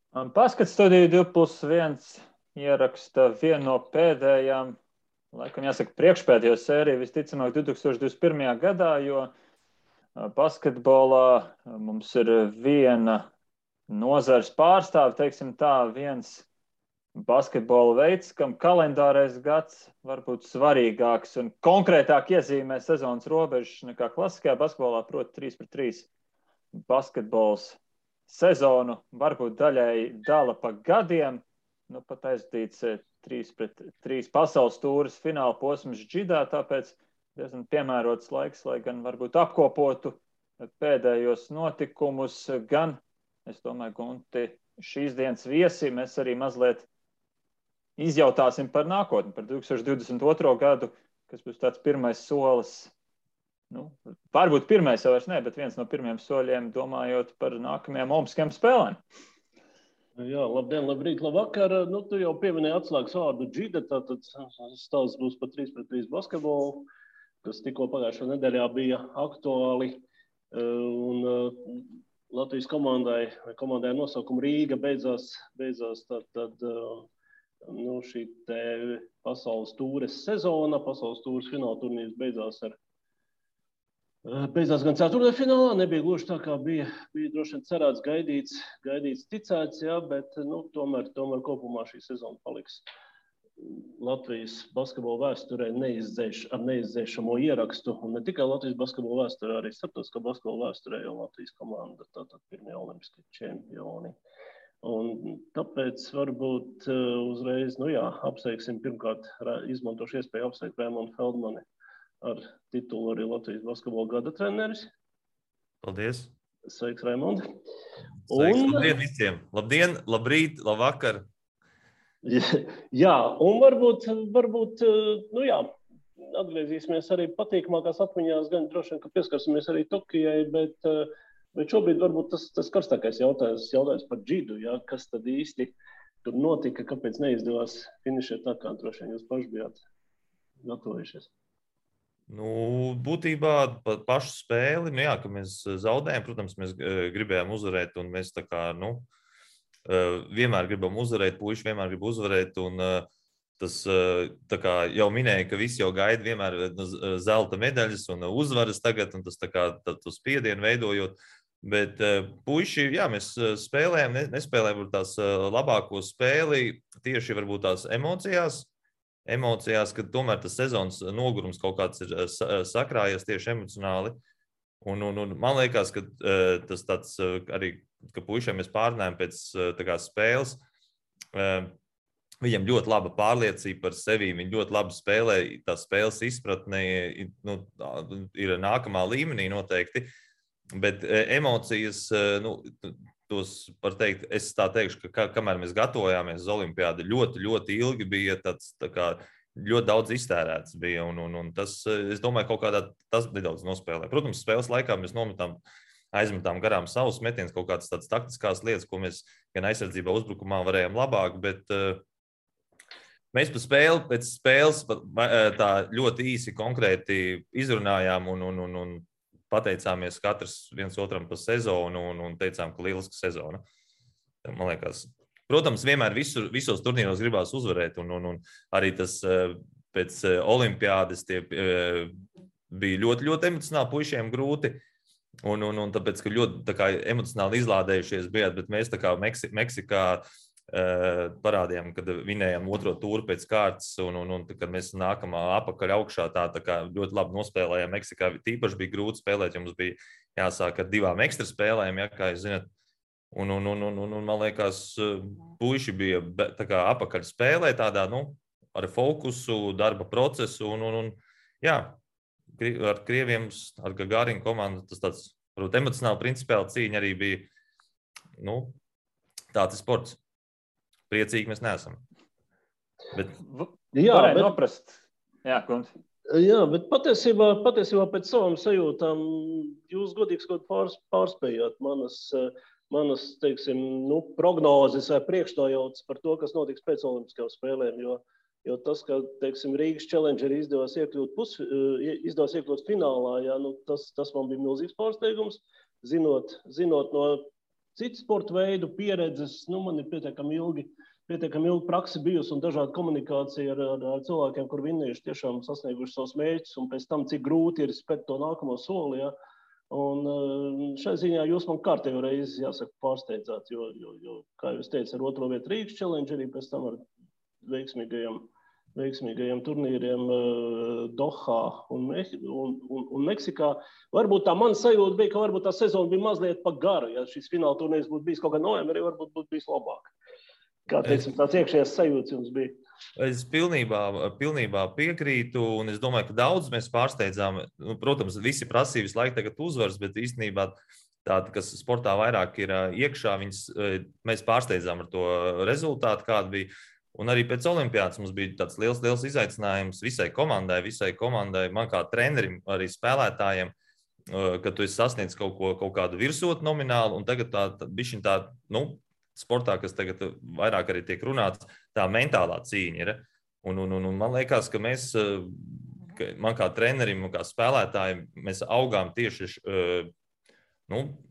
Paskats studiju 2+1 ieraksta vienu no pēdējām, laikam jāsaka, priekšpēdējo sēriju, visticamāk 2021. gadā, jo basketbolā mums ir viena nozars pārstāve, teiksim tā, viens basketbola veids, kam kalendārais gads var būt svarīgāks un konkrētāk iezīmē sezonas robežas nekā klasiskajā basketbolā, proti 3-3 basketbols sezonu varbūt daļēji dala pa gadiem, nu pat aizdīts 3-3 pasaules tūras fināla posms džidā, tāpēc diezgan piemērots laiks, lai gan varbūt apkopotu pēdējos notikumus, gan, es domāju, Gunti, šīs dienas viesi mēs arī mazliet izjautāsim par nākotni, par 2022. gadu, kas būs tāds pirmais solis. Nu, varbūt pirmais jau vairs ne, bet viens no pirmiem soļiem domājot par nākamajām Olimpiskajām spēlēm. Jā, labdien, labrīt, labvakar. Nu, tu jau pieminēji atslēgas vārdu džida, tātad stāsts būs par 3-3 basketbolu, kas tikko pagājušā nedēļā bija aktuāli. Un Latvijas komandai nosaukuma Rīga beidzās tad nu, šī te pasaules tūres sezona, pasaules tūres fināla turnīrs beidzās gan ceturtdaļfinālā, nebija gluži tā, kā bija droši vien cerēts, gaidīts, ticēts, jā, bet nu, tomēr kopumā šī sezona paliks Latvijas basketbola vēsturē ar neizdzēšamo ierakstu, un ne tikai Latvijas basketbola vēsturē, arī starptautiskā basketbola vēsturē, jo Latvijas komanda tātad pirmie olimpiskie čempioni. Un tāpēc varbūt uzreiz, nu jā, apsveiksim pirmkārt, izmantošu iespēju apsveikt Raimondu Feldmani ar titulu arī Latvijas basketbola gada treneris. Paldies. Sveiks, Raimond. Sveiks, labdien visiem. Labdien, labrīt, labvakar. Jā, un varbūt, nu jā, atgriezīsimies arī patīkamākās atmiņās, gan droši vien, ka pieskarsimies arī Tokijai, bet šobrīd varbūt tas karstākais jautājums par džidu, jā, kas tad īsti tur notika, kāpēc neizdevās finišēt tā, kā droši vien jūs paši bijāt gatavojušies. Nu, būtībā pašu spēli, nu jā, ka mēs zaudējam, protams, mēs gribējām uzvarēt, un mēs tā kā, nu, vienmēr gribam uzvarēt, puiši vienmēr grib uzvarēt, un tas, tā kā jau minēja, ka visi jau gaida vienmēr zelta medaļas un uzvaras tagad, un tas tā kā to spiedienu veidojot, bet puiši, jā, mēs spēlējam, nespēlējam tās labāko spēli, tieši varbūt tās emocijās, ka tomēr tas sezonas nogurums kaut kāds ir sakrājies tieši emocionāli. Un man liekas, ka tas tāds arī, ka puišiem mēs pārnājam pēc tā kā spēles, viņam ļoti laba pārliecība par sevi, viņi ļoti labi spēlē, tā spēles izpratne nu, ir nākamā līmenī noteikti, bet emocijas, nu, tos var teikt, es tā teikšu, ka kamēr mēs gatavojāmies uz olimpiādu, ļoti ilgi bija tāds, tā kā, ļoti daudz iztērēts bija, un tas, es domāju, kaut kādā tas nedaudz nospēlē. Protams, spēles laikā mēs aizmetām garām savus metienus, kaut kādas tādas taktiskās lietas, ko mēs gan aizsardzībā, uzbrukumā varējām labāk, bet mēs pēc spēles tā ļoti īsi konkrēti izrunājām un pateicāmies katrs viens otram par sezonu un teicām, ka lieliska sezona. Man liekas, protams, vienmēr visos turnīros gribās uzvarēt, un arī tas pēc olimpiādes tie bija ļoti emocionāli puišiem grūti, un tāpēc, ka ļoti tā kā emocionāli izlādējušies bijāt, bet mēs tā kā Meksikā parādījām, kad vinējām otro tūru pēc kārtas, un kad mēs nākam apakaļ augšā, tā kā ļoti labi nospēlējām Meksikā. Tīpaši bija grūti spēlēt, jo mums bija jāsāk ar 2 ekstra spēlēm, ja, kā jūs zināt. Un man liekas, puiši bija tā kā apakaļ spēlē tādā, nu, ar fokusu, darba procesu, un jā, ar krieviem, ar Gagarin komandu, tas tāds, varbūt, emocionāli principiāli cīņa arī bija, nu, tāds ir sports. Priecīgi mēs neesam. Bet varēja noprast. Jā, Kunti. Jā, bet patiesībā pēc savām sajūtām jūs godīgi pārspējāt manas, teiksim, nu, prognozes vai priekšnojautas par to, kas notiks pēc olimpiskajām spēlēm, jo tas, ka, teiksim, Rīgas Challengeri izdevās iekļūt finālā, jā, nu, tas man bija milzīgs pārsteigums, zinot no citu sporta veidu pieredzes. Man ir pietiekami ilgi praksi bijusi un dažāda komunikācija ar cilvēkiem, kur vinnējuši tiešām sasnieguši savus mērķus un pēc tam, cik grūti ir spēt to nākamo soli. Ja? Un šai ziņā jūs man kārtējo reizi, jāsaka, pārsteidzāt, jo, kā jūs teicat, ar 2. vietu Rīgas challenge arī pēc tam ar veiksmīgajiem turnīriem Dohā un Meksikā. Varbūt tā mana sajūta bija, ka varbūt tā sezona bija mazliet pa garu. Ja šis fināla turnīrs būtu bijis kaut kā novembrī, varbūt būtu bijis labāk. Kā teiksim, tāds iekšējais sajūts jums bija? Es pilnībā piekrītu, un es domāju, ka daudz mēs pārsteidzām. Protams, visi prasīja visu laiku tagad uzvaras, bet īstenībā tāda, kas sportā vairāk ir iekšā, mēs pārsteidzām ar to rezultātu, kāda bija. Un arī pēc olimpiādas mums bija tāds liels izaicinājums visai komandai, man kā trenerim, arī spēlētājiem, ka tu esi sasniedz kaut kādu virsotni nomināli, un tagad tā sportā, kas tagad vairāk arī tiek runāts, tā mentālā cīņa ir. Un man liekas, ka man kā trenerim un kā spēlētājiem, mēs augām tieši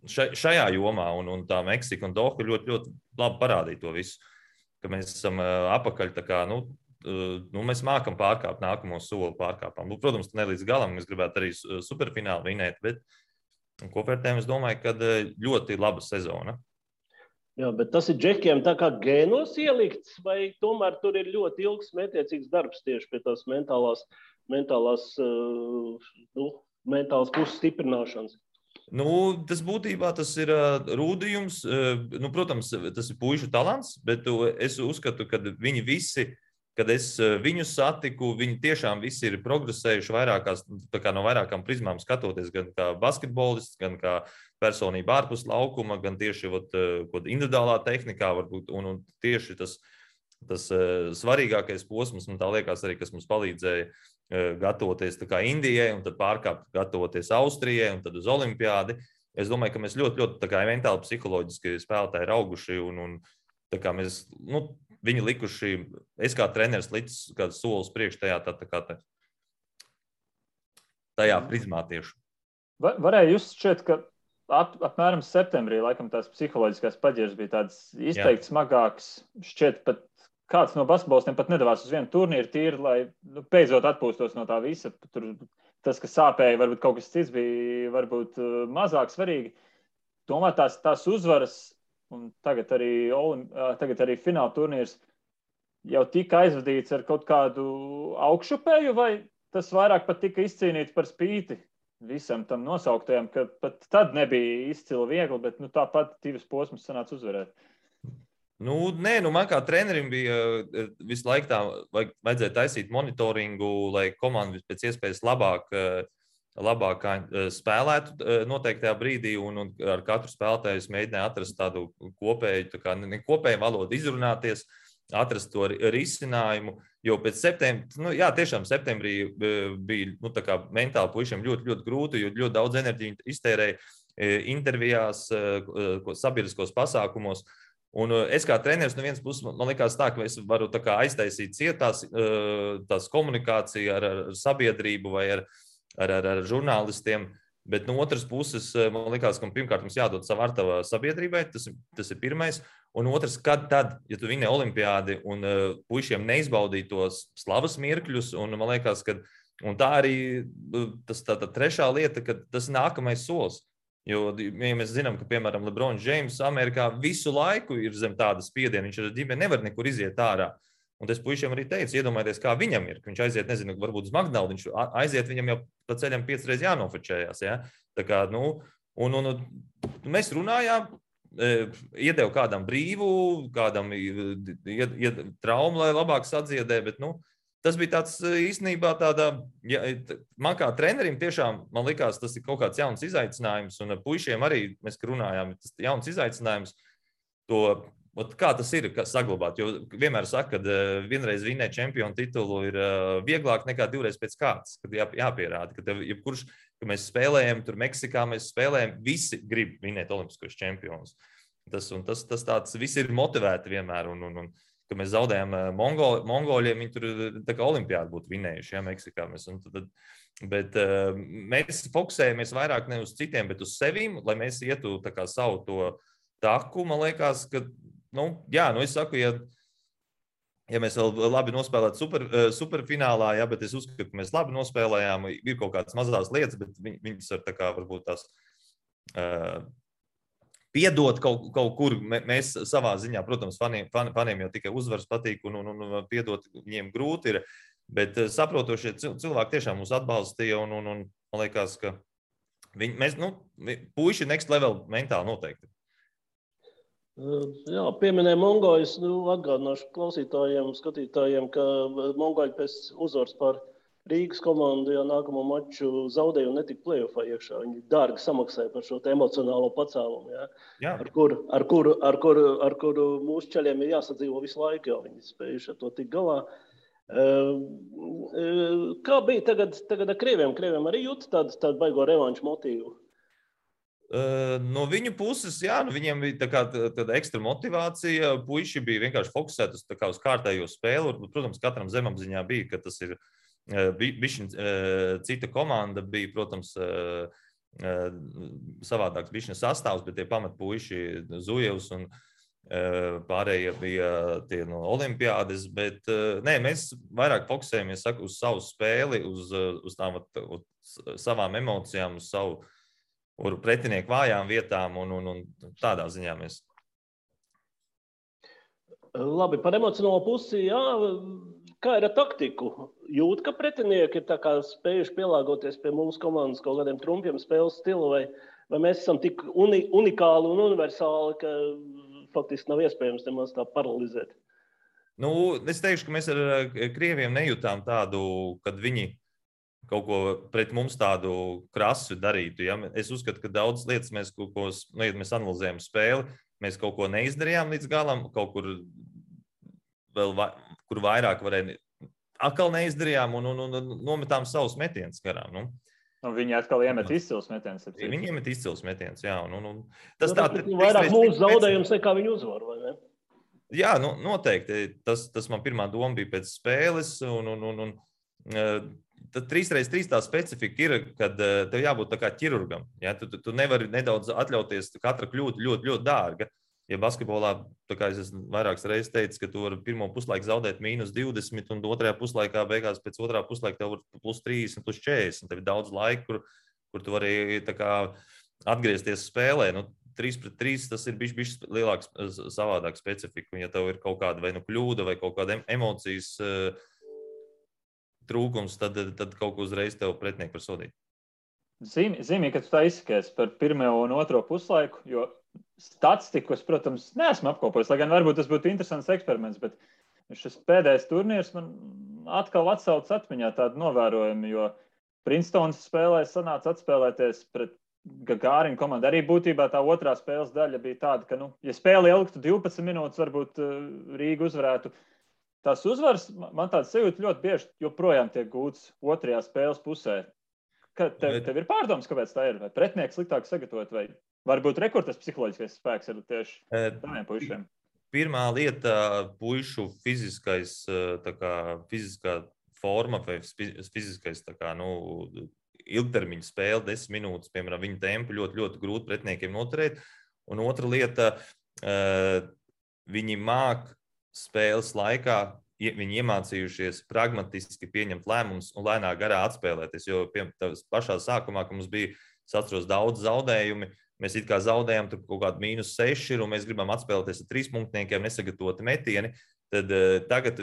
šajā jomā, un tā Meksika un Doha ļoti, ļoti labi parādīja to visu, ka mēs esam apakaļ, tā kā, mēs mākam pārkāpt nākamo soli pārkāpām. Protams, ne līdz galam, mēs gribētu arī superfinālu vinēt, bet kopvērtējumā es domāju, ka ļoti laba sezona. Jā, bet tas ir džekiem tā kā gēnos ielikts, vai tomēr tur ir ļoti ilgs mētiecīgs darbs tieši pie tās mentālās puses stiprināšanas? Tas būtībā tas ir rūdījums. Protams, tas ir puišu talants, bet es uzskatu, ka viņi visi, kad es viņus satiku, viņi tiešām visi ir progresējuši no vairākām prizmām skatoties, gan kā basketbolists, gan kā personība ārpus laukuma, gan tieši individuālā tehnikā, varbūt, un tieši tas svarīgākais posms, un tā liekas arī, kas mums palīdzēja gatavoties tā kā Indijai, un tad pārkāpt gatavoties Austrijai, un tad uz olimpiādi. Es domāju, ka mēs ļoti, ļoti tā kā mentāli, psiholoģiski spēlētāji ir auguši, un tā kā mēs, viņi likuši, es kā treneris licis kāds solis priekš tajā prizmā tieši. Varēja just šķiet, ka apmēram septembrī, laikam tās psiholoģiskās paģieras bija tādas izteikti smagākas. Šķiet, pat kāds no basketbolistiem pat nedavās uz vienu turnīru tīri, lai beidzot atpūstos no tā visa. Tur tas, kas sāpēja, varbūt kaut kas cits bija varbūt mazāk svarīgi. Tomēr tās uzvaras, un tagad arī fināla turnīrs jau tika aizvadīts ar kaut kādu augšupēju, vai tas vairāk pat tika izcīnīts par spīti visam tam nosauktajam, ka pat tad nebija izcili viegli, bet tāpat divas posmas sanāca uzvarēt. Man kā trenerim bija visu laiku tā, vajadzēja taisīt monitoringu, lai komanda pēc iespējas labāk spēlētu noteiktajā brīdī, un ar katru spēlētāju es mēģināju atrast tādu kopēju valodu, izrunāties, atrast to risinājumu, jo pēc septembrī bija mentāli puišiem ļoti, ļoti grūti, jo ļoti daudz enerģiju iztērēja intervijās, sabiedriskos pasākumos. Un es kā treneris no vienas puses, man likās tā, ka es varu aiztaisīt tās komunikāciju ar sabiedrību vai ar žurnālistiem, bet no otras puses man likās, ka pirmkārt mums jādod savu artavu sabiedrībai, tas ir pirmais. Un otrs, ja tu vinē olimpiādi un puišiem neizbaudīja tos slavas mirkļus, un man liekas, ka tā arī tā trešā lieta, ka tas nākamais solis. Jo, ja mēs zinām, ka, piemēram, LeBron James Amerikā visu laiku ir zem tāda spiediena, viņš ar ģimeni nevar nekur iziet ārā. Un es puišiem arī teicu, iedomājieties, kā viņam ir, ka viņš aiziet, nezinu, varbūt uz McDonald's, viņš aiziet, viņam jau pa ceļam 5 reizes jānofečējās. Ja? Tā kā, un mēs runājām, iedevu kādam brīvu, kādam traumu, lai labāk sadziedē, bet, tas bija tāds īstenībā man kā trenerim tiešām, man likās, tas ir kaut kāds jauns izaicinājums, un puišiem arī mēs runājām, tas ir jauns izaicinājums, kā tas ir saglabāt, jo vienmēr saka, ka vienreiz vinēt čempionu titulu ir vieglāk nekā 2 reizes pēc kārtas, kad jāpierāda, ka mēs spēlējam, tur Meksikā mēs spēlējam, visi grib vinēt olimpiskos čempionus. Tas tāds, visi ir motivēti vienmēr, un ka mēs zaudējām mongoļiem, viņi tur tā kā olimpiādi būtu vinējuši, ja, Meksikā. Bet mēs fokusējamies vairāk ne uz citiem, bet uz sevīm, lai mēs ietu tā kā savu to taku, man liekas, ka, es saku, ja mēs vēl labi nospēlētu superfinālā, jā, bet es uzskatu, ka mēs labi nospēlējām, ir kaut kādas mazās lietas, bet viņas var tā kā varbūt tās piedot kaut kur. Mēs savā ziņā, protams, faniem jau tikai uzvaras patīk un piedot viņiem grūti ir, bet saprotošie cilvēki tiešām mūs atbalstīja un man liekas, ka puiši next level mentāli noteikti. Jā, pieminēja Mongoļus, atgādināšu klausītājiem, skatītājiem, ka Mongoļi pēc uzvaras par Rīgas komandu jau nākamo maču zaudēja un netika play-offā iekšā. Viņi dārgi samaksāja par šo emocionālo pacēlumu, jā. Ar kuru mūsu ceļiem ir jāsadzīvo visu laiku, jo viņi spējuši ar to tik galā. Kā bija tagad ar krieviem? Krieviem arī jūt tādu baigo revanšu motīvu? No viņu puses, viņiem bija tāda ekstra motivācija. Puiši bija vienkārši fokusēti uz kārtējo spēli. Protams, katram zemapziņā bija, ka tas ir cita komanda, bija, protams, savādāks bišķiņa sastāvs, bet tie pamatpuiši Zujevs un pārējie bija tie no olimpiādes. Bet mēs vairāk fokusējamies uz savu spēli, uz savām emocijām, uz savu pretinieku vājām vietām un tādā ziņā mēs. Labi, par emocionālo pusi, kā ir ar taktiku? Jūt, ka pretinieki ir tā kā spējuši pielāgoties pie mūsu komandas kaut kādiem trumpiem spēles stilu, vai mēs esam tik unikāli un universāli, ka faktiski nav iespējams nemaz tā paralizēt? Es teikšu, ka mēs ar krieviem nejūtām tādu, kad viņi kaut ko pret mums tādu krasu darītu. Ja? Es uzskatu, ka daudz lietas mēs mēs analizējam spēli, mēs kaut ko neizdarījām līdz galam, kaut kur vēl kur vairāk varēja, atkal neizdarījām un nometām savus metienus garām. Viņi atkal iemet izcils metienus. Viņi iemet izcils metienus, jā. Tas vairāk mūsu zaudējums nekā viņu uzvaru, vai ne? Jā, noteikti. Tas man pirmā doma bija pēc spēles tad 3x3 tā specifika ir, kad tev jābūt tā kā ķirurgam. Ja? Tu nevari nedaudz atļauties, katra kļūda ļoti, ļoti dārga. Ja basketbolā, tā kā es esmu vairākas reizes teicis, ka tu vari pirmo puslaiku zaudēt -20 un otrajā puslaikā beigās pēc otrā puslaika tev var +30, +40. Tev ir daudz laika, kur tu vari tā kā atgriezties spēlē. 3x3 tas ir bišķi lielāks savādāk specifika. Ja tev ir kaut kāda vai kļūda vai kaut kāda emocijas trūkums, tad kaut ko uzreiz tev pretinieki var sodīt. Zīmīgi, ka tu tā izsakies par pirmo un otro puslaiku, jo statistiku es, protams, neesmu apkopojis, lai gan varbūt tas būtu interesants eksperiments, bet šis pēdējais turnīrs man atkal atsauc atmiņā tādu novērojumu, jo Princetons spēlē sanāca atspēlēties pret Gagārinu komandu. Arī būtībā tā otrā spēles daļa bija tāda, ka, ja spēle ilgtu 12 minūtes, varbūt Rīga uzvarētu. Tās uzvaras, man tāds sajūta ļoti bieži joprojām tiek gūts otrajā spēles pusē. Tev ir pārdomas, kāpēc tā ir? Vai pretinieki sliktāk sagatavot, vai varbūt rekords psiholoģiskais spēks ir tieši tādiem puišiem? Pirmā lieta - puišu fiziskā forma vai fiziskais ilgtermiņa spēle, 10 minūtes, piemēram, viņa tempu ļoti, ļoti grūti pretiniekiem noturēt. Un otra lieta, viņi māk spēles laikā, viņi iemācījušies pragmatiski pieņemt lēmumus un lēnā garā atspēlēties. Jo pašā sākumā, kad mums bija, es atceros, daudz zaudējumi, mēs it kā zaudējām tur kaut kādu -6 un mēs gribam atspēlēties ar 3 punktniekiem, nesagatavoti metieni. Tad tagad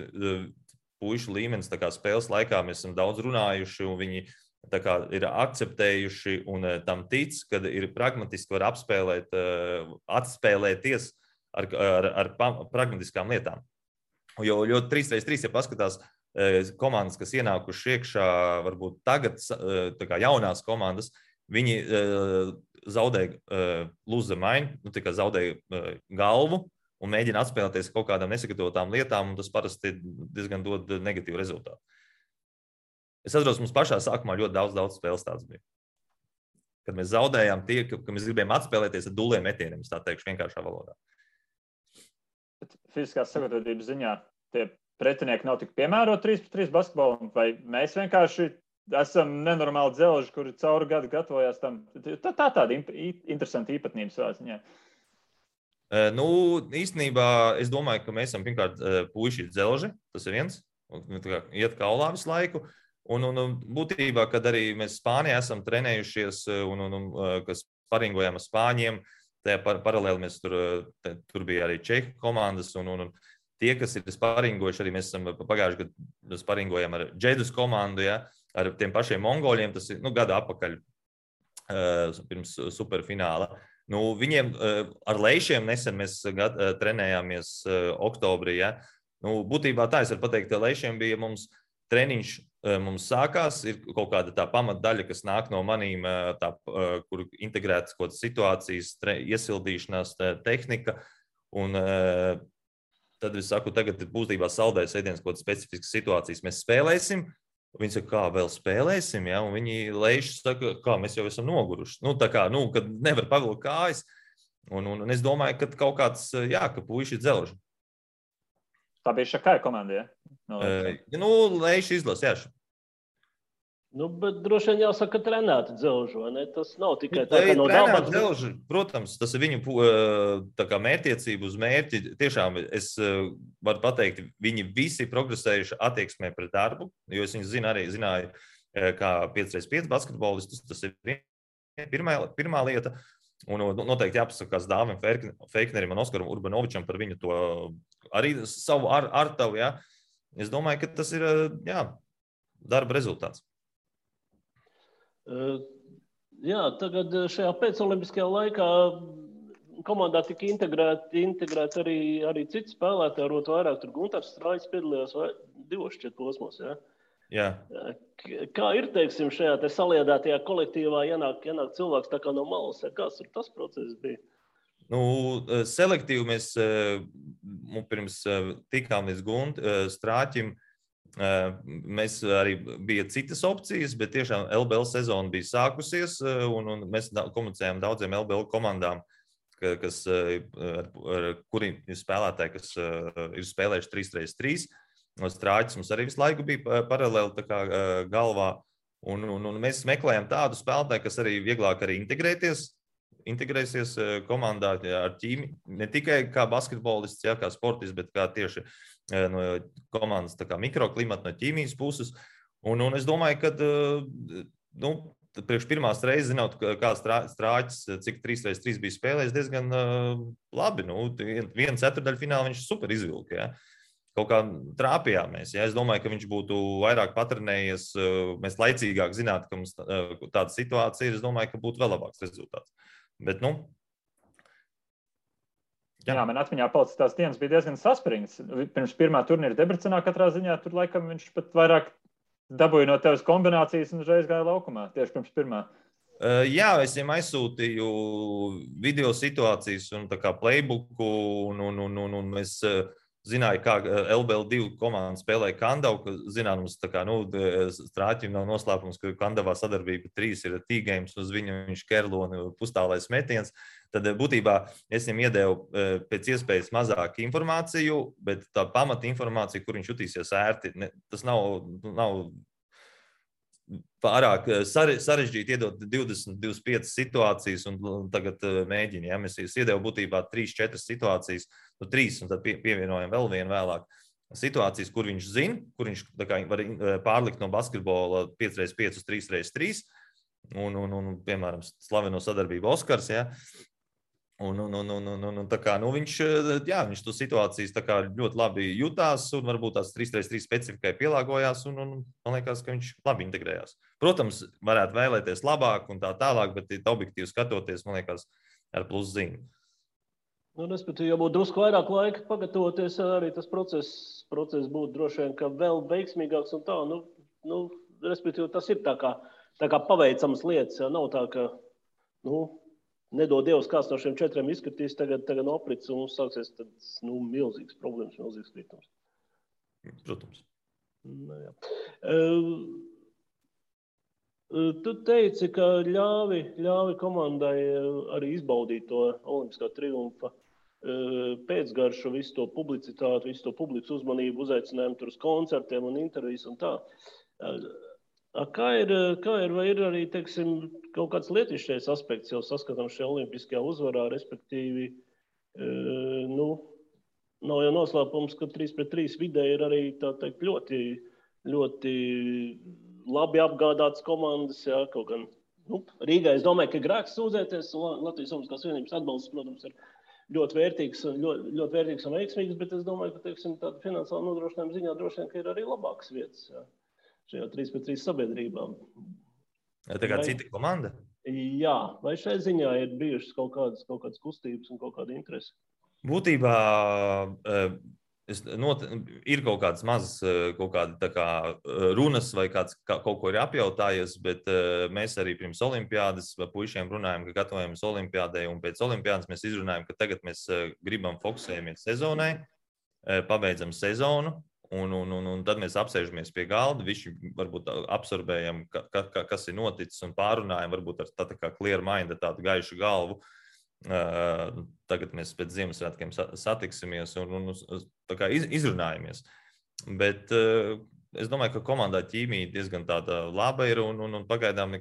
puišu līmenis spēles laikā mēs esam daudz runājuši un viņi ir akceptējuši un tam tic, kad ir pragmatiski var atspēlēties ar pragmatiskām lietām. Jo 3x3, ja paskatās komandas, kas ienākuši iekšā, varbūt tagad jaunās komandas, viņi zaudēja lose the mind, zaudēja galvu un mēģina atspēlēties kaut kādām nesagatavotām lietām, un tas parasti diezgan dod negatīvu rezultātu. Es atceros, mums pašā sākumā ļoti daudz spēles tāds bija. Kad mēs zaudējām ka mēs gribējām atspēlēties ar duliem metieniem, es tā teikšu vienkāršā valodā. Fiziskās sagatavotības ziņā tie pretinieki nav tik piemēroti 3x3 basketbolam, vai mēs vienkārši esam nenormāli dzelži, kuri cauri gadu gatavojās tam. Tāda interesanta īpatnība savā ziņā. Nu, īstenībā es domāju, ka mēs esam pirmkārt puiši dzelži, tas ir viens, iet kaulā visu laiku. Un būtībā, kad arī mēs Spānijā esam trenējušies kas paringojām ar spāņiem, tajā paralēli mēs tur bija arī Čehu komandas un tie, kas ir sparingojuši, arī mēs esam pagājuši gadu sparingojām ar Džedus komandu, ja, ar tiem pašiem mongoļiem, tas ir gada atpakaļ pirms superfināla. Viņiem ar leišiem nesen mēs trenējāmies oktobrī. Ja. Būtībā tā es varu pateikt, ka leišiem bija mums treniņš, mums sākās, ir kaut kāda tā pamatdaļa, kas nāk no manīm, kur integrētas kaut kādas situācijas, iesildīšanās tehnika. Un tad es saku, tagad būtībā saldējas ēdienas kaut kādas specifiskas situācijas. Mēs spēlēsim. Viņi saka, kā vēl spēlēsim, ja? Un viņi leiši saka, kā mēs jau esam noguruši. Kad nevar pavilkt kājas. Un es domāju, ka kaut kāds, ka puiši ir dzelži. Tā bija Šakai komanda, ja? Leiši izlas, jā. Bet droši vien jāsaka, ka trenēti dzelži, vai ne? Tas nav tikai tā, ka no dabas. Dzelži, protams, tas ir viņu mērķtiecība uz mērķi. Tiešām es varu pateikt, viņi visi progresējuši attieksmē pret darbu, jo es viņus zināju kā 5x5 basketbolistus. Tas ir pirmā lieta. Un noteikti jāpasakās Dāvim Feiknerim un Oskaram Urbanovičam par viņu to arī savu artavu. Ja? Es domāju, ka tas ir darba rezultāts. Tagad šajā pēcolimpiskajā laikā komandā tika integrēti arī citi spēlētāji, arot vairāk. Tur Guntars Strāļs piedalījās divos šķiet posmos. Ja? Jā. Kā ir, teiksim, šajā te saliedētajā kolektīvā ienāk cilvēks tā kā no malas? Kāds tur tas process bija? Selektīvi mēs pirms tikām līdz Strāķim. Mēs arī bija citas opcijas, bet tiešām LBL sezona bija sākusies, un mēs komunicējām daudziem LBL komandām, ar kuriem ir spēlētāji, kas ir spēlējuši 3x3. Strāķis mums arī visu laiku bija paralēli galvā, un mēs meklējām tādu spēlētāju, kas arī vieglāk arī integrēsies komandā ar ķīmi, ne tikai kā basketbolists, kā sportists, bet kā tieši no komandas mikroklimata, no ķīmijas puses. Un es domāju, ka priekš pirmās reizes, zinot, kā Strāķis, cik 3x3 bija spēlējis, diezgan labi. Vienu ceturtdaļfinālu viņš super izvilka. Ja? Kaut kā trāpījāmies. Ja? Es domāju, ka viņš būtu vairāk patrenējies, mēs laicīgāk zinātu, ka mums tāda situācija ir. Es domāju, ka būtu vēl labāks rezultāts. Bet, Jā, man atmiņā palicis tās dienas bija diezgan saspringts. Pirms pirmā turnīra Debrecenā katrā ziņā tur laikam viņš pat vairāk dabūja no tevis kombinācijas un uzreiz gāja laukumā, tieši pirms pirmā. Jā, es viņam aizsūtīju video situācijas un playbooku un mēs zināju, kā LBL2 komanda spēlēja Kandavu, zināms, Strāķim nav noslēpums, ka Kandavā sadarbība 3 ir T-games, uz viņu viņš kerloni pustālais metiens. Tad būtībā es viņam iedevu pēc iespējas mazāk informāciju, bet tā pamata informācija, kur viņš jutīsies ērti, tas nav pārāk sarežģīti iedot 20-25 situācijas un tagad mēģini. Ja? Mēs iedevu būtībā 3-4 situācijas, 3 un tad pievienojam vēl vienu vēlāk. Situācijas, kur viņš zina, kur viņš var pārlikt no basketbola 5x5 uz 3x3 un piemēram, slaveno sadarbību Oskars. Ja? Viņš to situācijas ļoti labi jutās un varbūt tās 3x3 specifikai pielāgojās un man liekas, ka viņš labi integrējās. Protams, varētu vēlēties labāk un tā tālāk, bet objektīvi skatoties, man liekas, ar pluzīm. Respektīvi, ja būtu drusku vairāk laika pagatavoties, arī tas process būtu droši vien, ka vēl veiksmīgāks un tā. Respektīvi, tas ir tā kā paveicamas lietas, ja nav tā, ka, nedod Dievs, kāds no šiem 4 izskatīs, tagad noprits un mums sāksies milzīgas problēmas, milzīgas kritums. Protams. Tu teici, ka ļāvi komandai arī izbaudīt to olimpiskā triumfa pēcgaršu, visu to publicitāti, visu to publikas uzmanību, uzaicinājumu tur uz koncertiem un intervijas un tā. Kā ir, vai ir arī, teiksim, kaut kāds lietišķais aspekts jau saskatām šajā olimpiskajā uzvarā, respektīvi nav jau noslēpums, ka 3-3 vidē ir arī, tā teikt, ļoti, ļoti labi apgādātas komandas, jā, kaut gan, Rīgā es domāju, ka grēks sūdzēties, un Latvijas Olimpiskās Savienības atbalsts, protams, ir ļoti vērtīgs un veiksmīgs, bet es domāju, ka, teiksim, tāda finansiāla nodrošinājuma ziņā droši vien, ka ir arī labākas vietas, jā, šajā 3-3 sabiedrībā. Tā kā cita komanda? Jā, vai šai ziņā ir bijušas kaut kādas kustības un kaut kāda interese? Būtībā ir kaut kādas mazas runas vai kāds kaut ko ir apjautājies, bet mēs arī pirms olimpiādas puišiem runājam, ka gatavojamies olimpiādai, un pēc olimpiādas mēs izrunājam, ka tagad mēs gribam fokusējamies sezonai, pabeidzam sezonu, un tad mēs apsēžamies pie galda, visi varbūt absorbējam, kas ir noticis, un pārunājam varbūt ar tā kā clear mind, tādu gaišu galvu. Tagad mēs pēc Ziemassvētkiem satiksimies un tā kā izrunājamies. Bet es domāju, ka komandā ķīmija diezgan tāda laba ir un pagaidām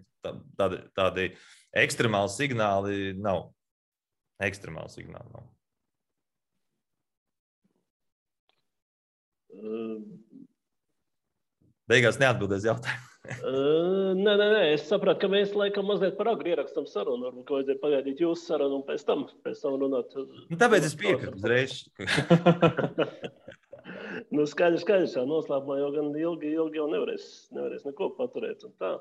tādi ekstremāli signāli nav. Beigās neatbildēs jautājumu. Nē, es sapratu, ka mēs laikam mazliet par agru ierakstam sarunu, varbūt, ka vajadzēja pagaidīt jūsu sarunu un pēc tam runāt. Tāpēc es piekrītu uzreiz. Skaidrs, jā, noslēpumā jau gan ilgi jau nevarēs neko paturēt un tā.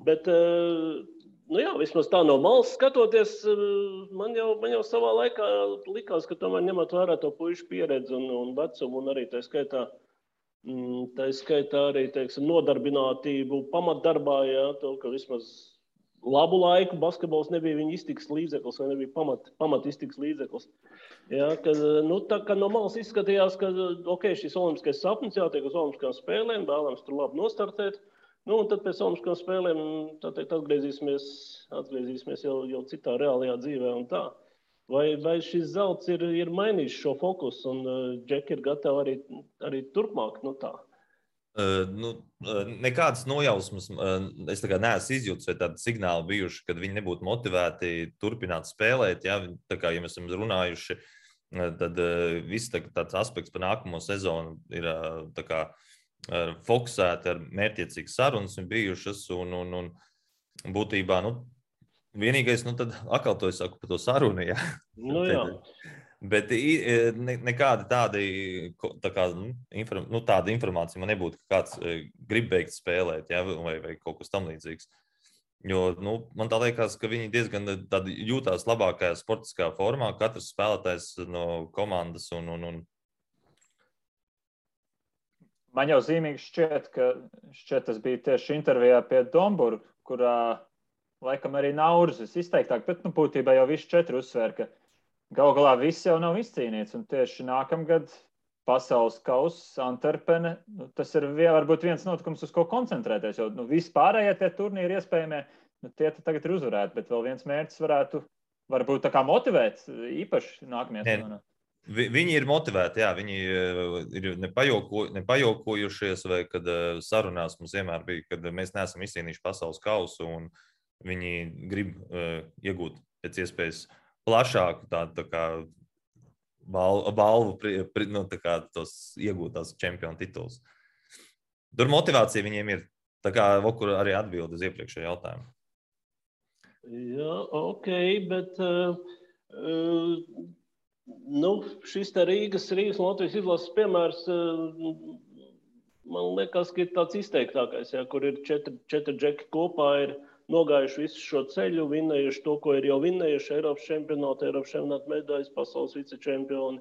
Bet, jā, vismaz tā no malas skatoties, man jau savā laikā likās, ka tomēr ņemot vērā to puišu pieredzi un vecumu un arī tā skaitā arī, teiksim, nodarbinātību pamatdarbā, jā, to, ka vismaz labu laiku basketbols nebija viņa iztikas līdzeklis vai nebija pamat iztikas līdzeklis. Jā, tā kā no malas izskatījās, ka, šis olimpiskais sapnis jātiek uz olimpiskām spēlēm, vēlams tur labi nostartēt, un tad pēc olimpiskām spēlēm, tā teikt, atgriezīsimies jau citā reālajā dzīvē un tā. Vai šis zelts ir mainījis šo fokusu un Džeki ir gatavi arī turpmāk? Tā? Nekādas nojausmas es neesmu izjūtis vai tādi signāli bijuši, kad viņi nebūtu motivēti turpināt spēlēt. Ja, ja mēs esam runājuši, tad viss tāds aspekts par nākamo sezonu ir fokusēti ar mērķiecīgas sarunas un bijušas un būtībā, vienīgais, tad atkal to es saku par to sarunu, jā. Jā. Bet nekāda tāda informācija man nebūtu, ka kāds grib beigt spēlēt, jā, vai kaut kas tam līdzīgs. Jo, man tā liekas, ka viņi diezgan jūtās labākajā sportiskā formā, katrs spēlētājs no komandas un. Man jau zīmīgi šķiet, ka tas bija tieši intervijā pie Domburga, kurā laikam arī Naurzis izteiktāk, bet būtībā jau visi 4 uzsver, ka galu galā viss jau nav izcīnīts. Un tieši nākamgad pasaules kauss Antverpene, tas ir varbūt viens notikums, uz ko koncentrēties. Jo vispārējie tie turnīri iespējamie, tie tagad ir uzvarēti, bet vēl viens mērķis varbūt tā kā motivēt īpaši nākamajā sezonā. Viņi ir motivēti, jā, viņi ir nepajokojušies, vai kad sarunās mums vienmēr bija, kad mēs neesam izcīnījuši pasaules kausu un viņi grib iegūt pēc iespējas plašāku tādu balvu, tos iegūtās čempionu tituls. Tur motivācija viņiem ir, tā kā Vokur arī atbild uz iepriekšējo jautājumu. Jā, bet šis te Rīgas un Latvijas izlases piemērs, man liekas, ka ir tāds izteiktākais, jā, kur ir 4 džeki kopā ir nogājuši visu šo ceļu, vinnējuši to, ko ir jau vinnējuši, Eiropas čempionāta medaļas, pasaules vicečempioni.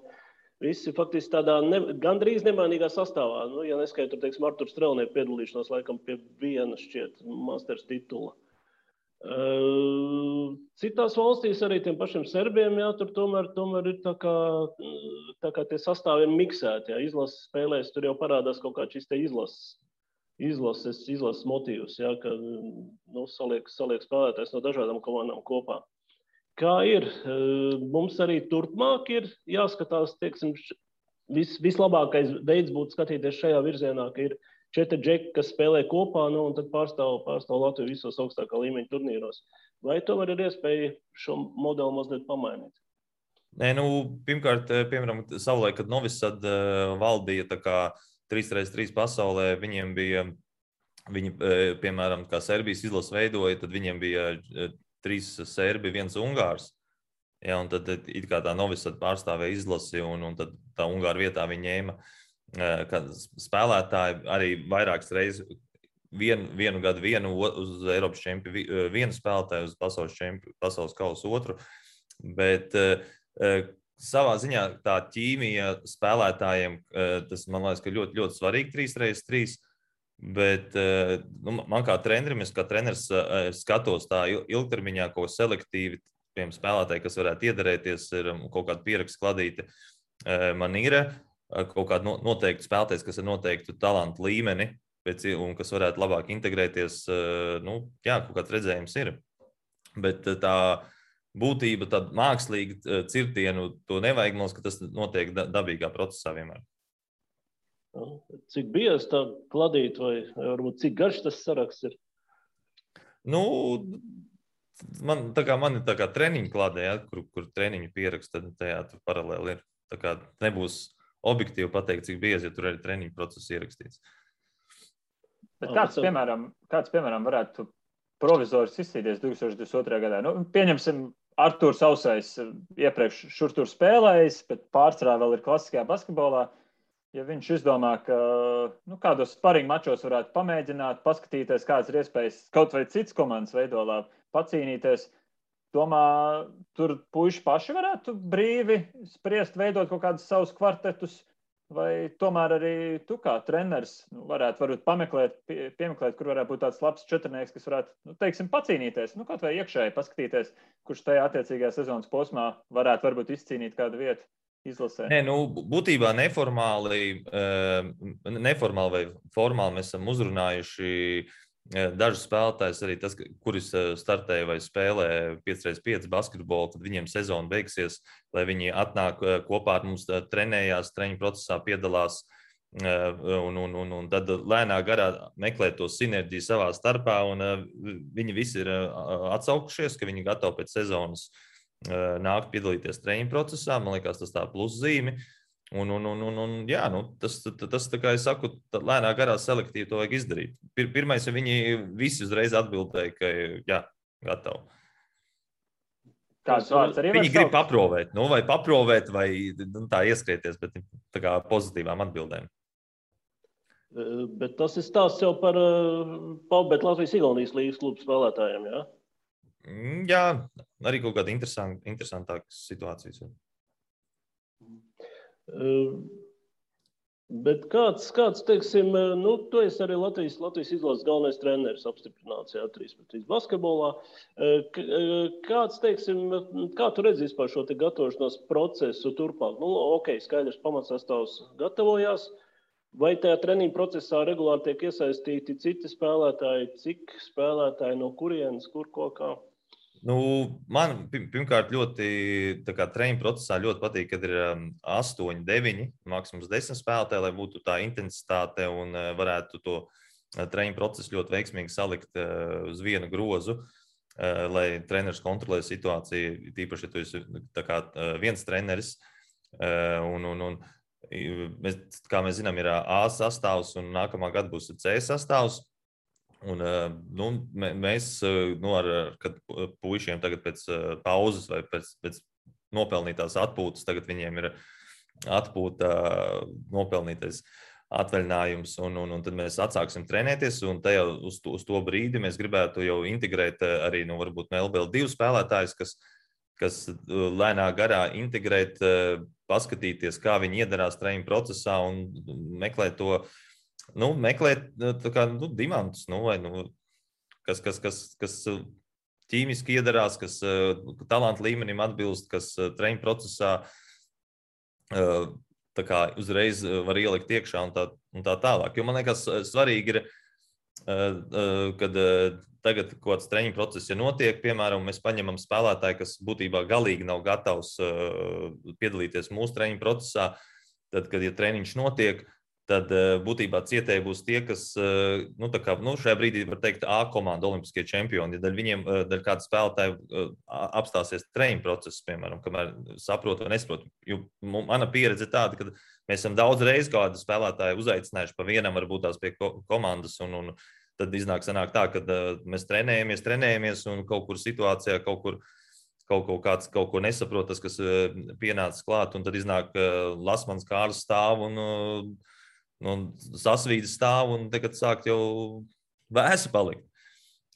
Visi faktiski tādā gandrīz nemainīgā sastāvā. Ja neskaitot, teiksim, Arturu Strelnieku piedalīšanos laikam pie viena šķiet masters titula. Citās valstīs arī tiem pašiem serbiem, jā, tur tomēr ir tā kā tie sastāvi ir miksēti, jā, izlases spēlēs, tur jau parādās kaut kā šis te izlases motīvs, jā, ka saliek spēlētājs no dažādām komandām kopā. Kā ir? Mums arī turpmāk ir jāskatās, teiksim, vislabākais veids būtu skatīties šajā virzienā, ka ir 4 džeki, kas spēlē kopā, un tad pārstāv Latviju visos augstākā līmeņa turnīros. Vai tomēr ir iespēja šo modeli mazliet pamainīt? Nē, pirmkārt, piemēram, savulaik, kad Novisad valdīja tā kā 3x3 pasaulē, viņiem bija, piemēram, kā Serbijas izlase veidoja, tad viņiem bija 3 serbi, 1 ungārs. Ja, un tad it kā tā Novisad pārstāvēja izlasi, un tad tā Ungāra vietā viņi ņēma spēlētāji arī vairākas reizes vienu gadu uz Eiropas čempionu vienu spēlētāju, uz pasaules kausa otru. Bet savā ziņā tā ķīmija spēlētājiem, tas man liekas, ka ļoti, ļoti svarīgi 3x3. Bet man kā trenerim, es kā treneris skatos tā ilgtermiņā, ko selektīvi piemēram spēlētāji, kas varētu iedarēties, ir kaut kāda pieraksta kladīte. Man ir kaut kāda noteikta spēlētājs, kas ir noteiktu talantu līmeni, un kas varētu labāk integrēties, kaut kāds redzējums ir. Bet tā būtība, tad mākslīgi cirtienu, to nevajag, mums, ka tas notiek dabīgā procesā vienmēr. Cik biezs tā kladīt, vai varbūt cik garš tas saraksts ir? Man ir tā kā treniņu kladē, ja, kur treniņu pieraksta, tad tajā tur paralēli ir. Tā kā nebūs objektīvi pateikt, cik biezi, ja tur arī treniņu process ierakstīts. Bet kāds, piemēram, varētu provizors izcīties 2022. gadā? Pieņemsim, Artūrs Ausais iepriekš šur tur spēlējis, bet pārsvarā vēl ir klasiskajā basketbolā. Ja viņš izdomā, ka kādos sparingu mačos varētu pamēģināt, paskatīties, kādas ir iespējas kaut vai cits komandas veidolā pacīnīties, domā, tur puiši paši varētu brīvi spriest, veidot kaut kādus savus kvartetus, vai tomēr arī tu kā treneris varētu piemeklēt, kur varētu būt tāds labs četrnieks, kas varētu, pacīnīties, kaut vai iekšēji paskatīties, kurš tajā attiecīgajā sezonas posmā varētu varbūt izcīnīt kādu vietu. Izlasē. Nē, būtībā neformāli vai formāli mēs esam uzrunājuši dažus spēlētājus, arī tas, kuris startēja vai spēlē 5x5 basketbolu, kad viņiem sezona beigsies, lai viņi atnāk kopā ar mums, trenējās, treniņu procesā piedalās un tad lēnā garā meklē to sinerģiju savā starpā, un viņi visi ir atsaukušies, ka viņi gatavi pēc sezonas nākt piedalīties treniņu procesā. Man liekas, tas tā pluszīme. Tas tā kā es saku, lēnā garā selektīvi to vajag izdarīt. Pirmais, ja viņi visi uzreiz atbildēja, ka jā, gatavi. Kāds vārds arī viņi grib paprovēt, vai tā ieskrieties, bet tā kā pozitīvām atbildēm. Bet tas ir stāsts jau par Paubēt Latvijas-Igaunijas līgas klubu spēlētājiem, jā? Jā, arī kaut kāda interesantākas situācijas. Bet kāds teiksim, tu esi arī Latvijas izlases galvenais treneris apstiprināts, jā, 3x3 basketbolā. Kāds, teiksim, kā tu redzi vispār šo te gatavošanās procesu turpāk? Skaidrs, pamatsastāvs gatavojās. Vai tajā treniņu procesā regulāri tiek iesaistīti citi spēlētāji? Cik spēlētāji, no kurienes, kur, ko, kā? Man pirmkārt ļoti treniņu procesā ļoti patīk, kad ir 8, 9, maksimums 10 spēlētāji, lai būtu tā intensitāte un varētu to treniņu procesu ļoti veiksmīgi salikt uz vienu grozu, lai treneris kontrolē situāciju, tīpaši, ja tu esi viens treneris. Kā mēs zinām, ir A sastāvs un nākamā gada būs C sastāvs. Un, mēs kad puišiem tagad pēc pauzes vai pēc nopelnītās atpūtas, tagad viņiem ir atpūta nopelnītais atvaļinājums, un tad mēs atsāksim trenēties, un tajā uz to brīdi mēs gribētu jau integrēt arī varbūt no LBL2 spēlētājus, kas lēnā garā integrēt, paskatīties, kā viņi iedarās treniņu procesā un meklēt to, meklēt dimantus, kas ķīmiski iedarās, kas talantu līmenim atbilst, kas treniņu procesā uzreiz var ielikt iekšā un tā tālāk. Jo man liekas, svarīgi ir, kad tagad kaut kāds treniņu process, ja notiek, piemēram, mēs paņemam spēlētāju, kas būtībā galīgi nav gatavs piedalīties mūsu treniņu procesā, tad, kad ja treniņš notiek, tad būtībā cietēji būs tie, kas šajā brīdī var teikt A komanda, olimpiskie čempioni. Ja viņiem kāda spēlētāja apstāsies treniņu procesu, piemēram, kamēr saprotu vai nesaprotu. Jo mana pieredze ir tāda, ka mēs esam daudz reiz kādu spēlētāju uzaicinājuši pa vienam, varbūt tās pie komandas, un tad sanāk tā, ka mēs trenējamies, un kaut kur situācijā, kāds kaut ko nesaprot, tas, kas pienācis klāt, un tad iznāk Lasmans Kārlis stāv un sasvīdas stāv, un tagad sāk jau vēsu palikt.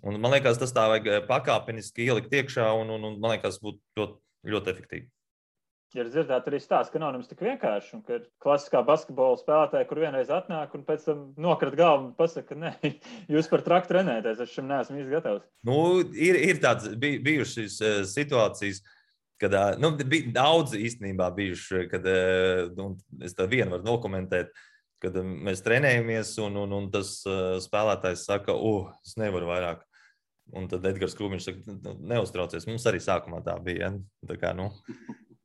Un man liekas, tas tā vajag pakāpeniski ielikt iekšā, un man liekas, būtu ļoti, ļoti efektīvi. Ja dzirdēt arī stāsts, ka nav nemaz tik vienkārši, un ka ir klasiskā basketbola spēlētāja, kur vienreiz atnāk un pēc tam nokrat galvu un pasaka, ka nē, jūs par traku trenēties, es šim neesmu īsti gatavs. Ir tāds bijušas situācijas, kad bija daudz īstenībā bijuši, kad es tā vienu varu nokomentēt, kad mēs trenējamies, un tas spēlētājs saka, es nevaru vairāk. Un tad Edgars Krūmiņš saka, neuztraucies. Mums arī sākumā tā bija. Ja? Tā kā,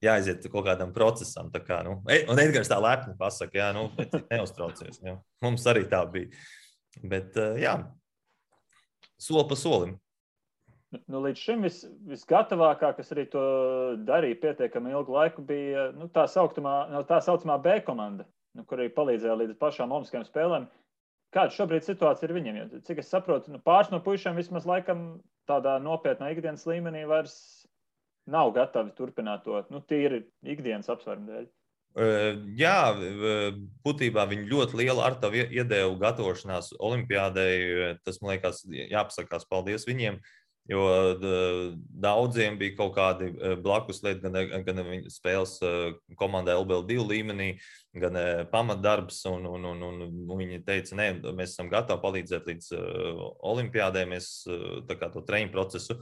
jāaiziet kaut kādam procesam. Tā kā, un Edgars tā lepni pasaka, neuztraucies. Ja? Mums arī tā bija. Bet, soli pa solim. Līdz šim visgatavākā, kas arī to darīja pietiekami ilgu laiku, bija tā saucamā B komanda, kur arī palīdzēja līdz pašām olimpiskajām spēlēm. Kāda šobrīd situācija ir viņiem? Jo, cik es saprotu, pāris no puišiem vismaz laikam tādā nopietnā ikdienas līmenī vairs nav gatavi turpināt to, tīri ikdienas apsvērumu dēļ. Jā, būtībā viņi ļoti lielu artavu iedevu gatavošanās olimpiādei. Tas, man liekas, jāpasakās paldies viņiem. Jo daudziem bija kaut kādi blakus lieti, gan viņa spēles komandai LBL2 līmenī, gan pamatdarbs, un viņi teica, nē, mēs esam gatavi palīdzēt līdz olimpiādē, mēs tā kā to treniņu procesu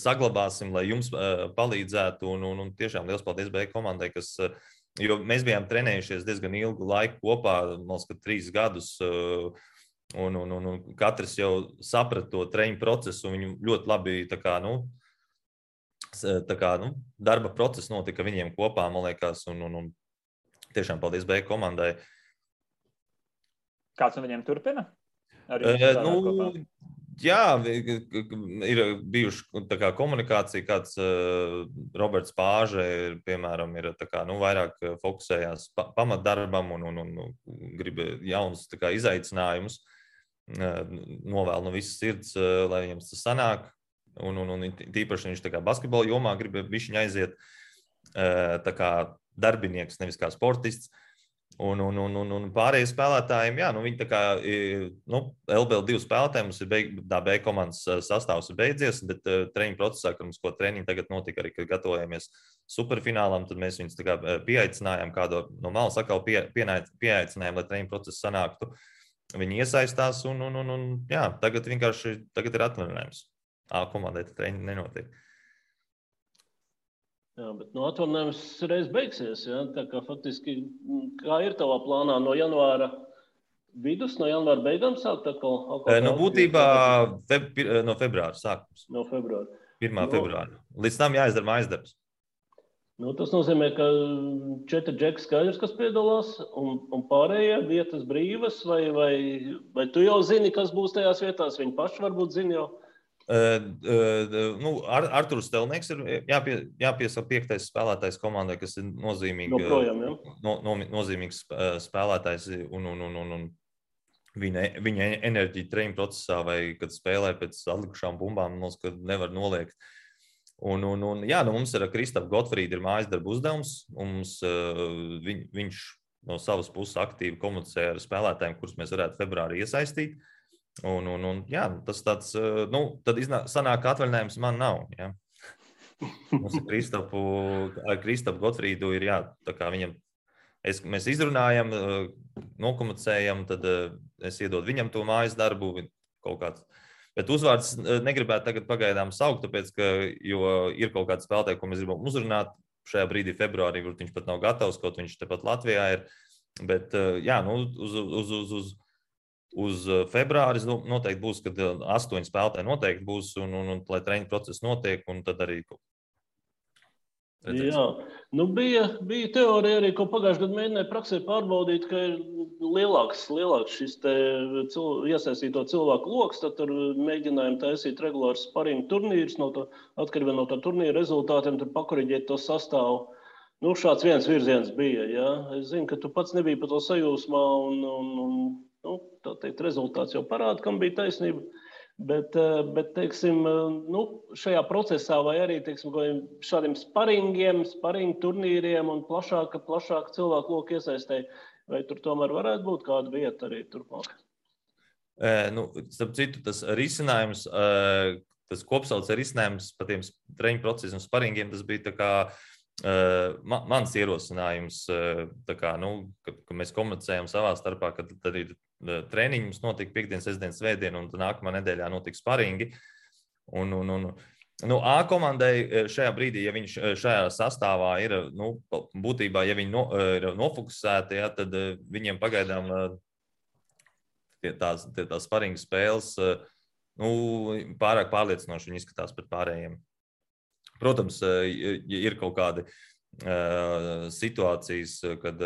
saglabāsim, lai jums palīdzētu, un tiešām liels paldies B komandai, jo mēs bijām trenējušies diezgan ilgu laiku kopā, man liekas, 3 gadus, un katrs jau saprata to treniņu procesu, un viņu ļoti labi darba process notika viņiem kopā, man liekas, un tiešām paldies B komandai. Kāds no viņiem turpina? Jā, ir bijuši komunikācija, kāds Roberts Pāže, piemēram, ir vairāk fokusējās pamatdarbam un grib jaunus izaicinājumus. Novēl no visas sirds, lai viņam tas sanāk, un tīpaši viņš basketbola jomā grib bišķiņ aiziet darbinieks, nevis kā sportists, un pārējie spēlētājiem, viņi LBL2 spēlētājiem mums ir B komandas sastāvs ir beidzies, bet treniņu procesā, kad mums ko treniņu tagad notika arī, kad gatavojamies superfinālam, tad mēs viņus pieaicinājām, kādu no malas atkal pieaicinājām, lai treniņu procesu sanāktu. Viņi iesaistās, un tagad ir atvaļinājums. A komandai treniņi nenotiek. Jā, bet atvaļinājums reiz beigsies. Ja? Tā kā faktiski, kā ir tavā plānā no janvāra vidus, no janvāra beigām sākt atkal? Būtībā no februāra sākums. No februāra. 1. februāra. Līdz tam jāizdara mājas darbs. Tas nozīmē, ka 4 džeki skaidrs, kas piedalās, un pārējie vietas brīvas, vai tu jau zini, kas būs tajās vietās? Viņi paši varbūt zina jau. Arturs Stelnieks ir jāpiesaka 5. spēlētājs komandai, kas ir nozīmīgs spēlētājs, un viņa enerģija treniņu procesā vai kad spēlē pēc atlikušām bumbām, mums nevar noliegt. Mums ir Kristaps Gotfrīds ir mājas darba uzdevums, un viņš no savas puses aktīvi komunicē ar spēlētājiem, kurus mēs varētu februārī iesaistīt. Tas tāds, tad sanāk, ka atvaļinājums man nav. Ja? Mums ar Kristapu Gotfrīdu ir, viņam, mēs izrunājam, nokomunicējam, tad es iedodu viņam to mājas darbu, kaut kāds. Bet uzvārds negribētu tagad pagaidām saukt, tāpēc, jo ir kaut kāds spēlētāji, ko mēs gribam uzrunāt šajā brīdī februārī, kur viņš pat nav gatavs, kaut viņš tepat Latvijā ir. Bet, uz februāris noteikti būs, kad 8 spēlētāji noteikti būs, un lai treniņu process notiek, un tad arī Jā, bija teorija arī, ko pagājušajā gadā mēģināja praksē pārbaudīt, ka ir lielāks šis iesaistīto cilvēku loks, tad tur mēģinājām taisīt regulārs sparingu turnīrus, atkarībā no tā turnīra rezultātiem, tur pakoriģēt to sastāvu. Šāds viens virziens bija. Ja? Es zinu, ka tu pats nebija par to sajūsmā, un tā teikt, rezultāts jau parāda, kam bija taisnība. Bet teiksim, šajā procesā vai arī teiksim, šādiem sparingu turnīriem un plašāka cilvēku loku iesaistē, vai tur tomēr varētu būt kāda vieta arī turpmāk? Starp citu, tas risinājums, tas kopsaucējs risinājums par tiem treniņu procesiem un sparingiem, tas bija tā kā mans ierosinājums, tā kā, ka mēs komunicējam savā starpā, ka tad ir treniņi, mums notika piekdien, sestdien, svētdien, un nākamā nedēļā notika sparingi. A komandai šajā brīdī, ja viņš šajā sastāvā ir, būtībā, ja viņi ir nofokusēti, ja, tad viņiem pagaidām tās sparinga spēles pārāk pārliecinoši viņi izskatās pret pārējiem. Protams, ir kaut kādi situācijas, kad,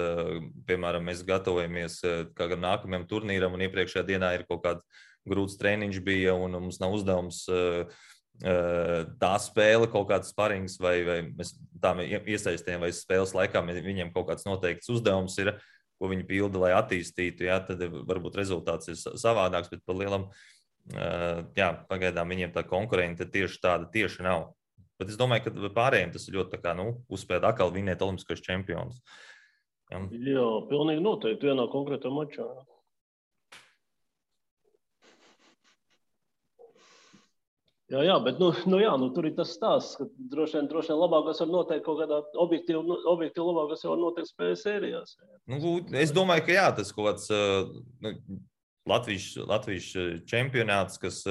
piemēram, mēs gatavojamies kādam nākamajam turnīram un iepriekšējā dienā ir kaut kāds grūts treniņš bija un mums nav uzdevums tā spēle, kaut kāds sparings vai mēs tā iesaistījām vai spēles laikā viņiem kaut kāds noteikts uzdevums ir, ko viņi pilda, lai attīstītu, jā, tad varbūt rezultāts ir savādāks, bet par lielam, pagaidām viņiem tā konkurenta tieši nav. Bet es domāju, ka pārējiem tas ir ļoti uzspēt atkal vinēt olimpiskos čempionus. Jā, pilnīgi noteikti vienā konkrētā mačā. Jā, bet tur ir tas stāsts, ka droši vien labākās var noteikt kaut kādā objektīvi labākās var noteikt spēles sērijās. Es domāju, ka jā, tas kaut kāds Latvijas čempionāts, kas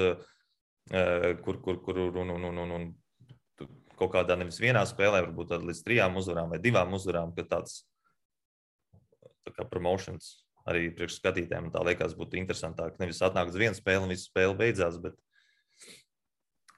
kur kaut kādā nevis vienā spēlē, varbūt līdz 3 uzvarām vai 2 uzvarām, ka tāds tā kā promotions arī priekš skatītājiem tā liekas būtu interesantāk. Nevis atnāk uz vienu spēli un visu spēli beidzās, bet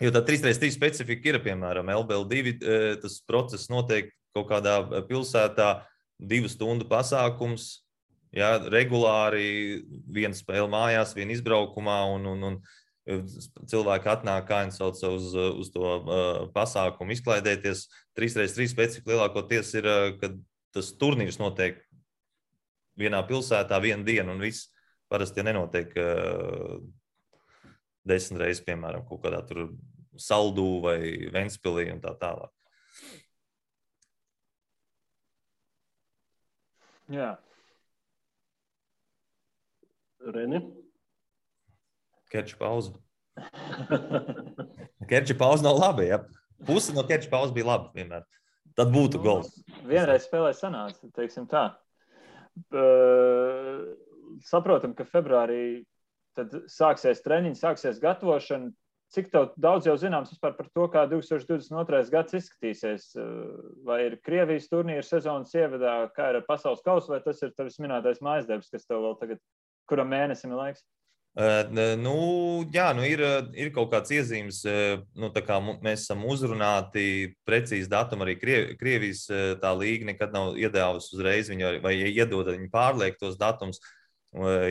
jo tā 3x3 specifika ir, piemēram, LBL2, tas process notiek kaut kādā pilsētā 2 stundu pasākums, jā, regulāri viena spēle mājās, viena izbraukumā un cilvēki atnāk, kā viņi sauc uz to pasākumu izklaidēties. 3x3 specifika lielākoties ir, kad tas turnīrs notiek vienā pilsētā vienu dienu un viss parasti nenotiek 10 reizes, piemēram, kaut kādā tur Saldū vai Ventspilī un tā tālāk. Jā. Reni? Kerča pauze. Kerča pauze nav labi, ja. Puse no kerča pauze bija labi vienmēr. Tad būtu gols. Vienreiz spēlē sanāca, teiksim tā. Saprotam, ka februārī tad sāksies treniņi, sāksies gatavošana. Cik daudz jau zināms vispār par to, kā 2022. gads izskatīsies? Vai ir Krievijas turnīra sezonas ievadā, kā ir ar pasaules kausu, vai tas ir tavs minētais mājasdarbs, kas tev vēl tagad, kuram mēnesim ir laiks? Ir kaut kāds iezīmes, tā kā mēs esam uzrunāti precīzi datumu, arī Krievijas tā līga nekad nav iedevusi uzreiz viņu, vai iedod viņi pārliek tos datums,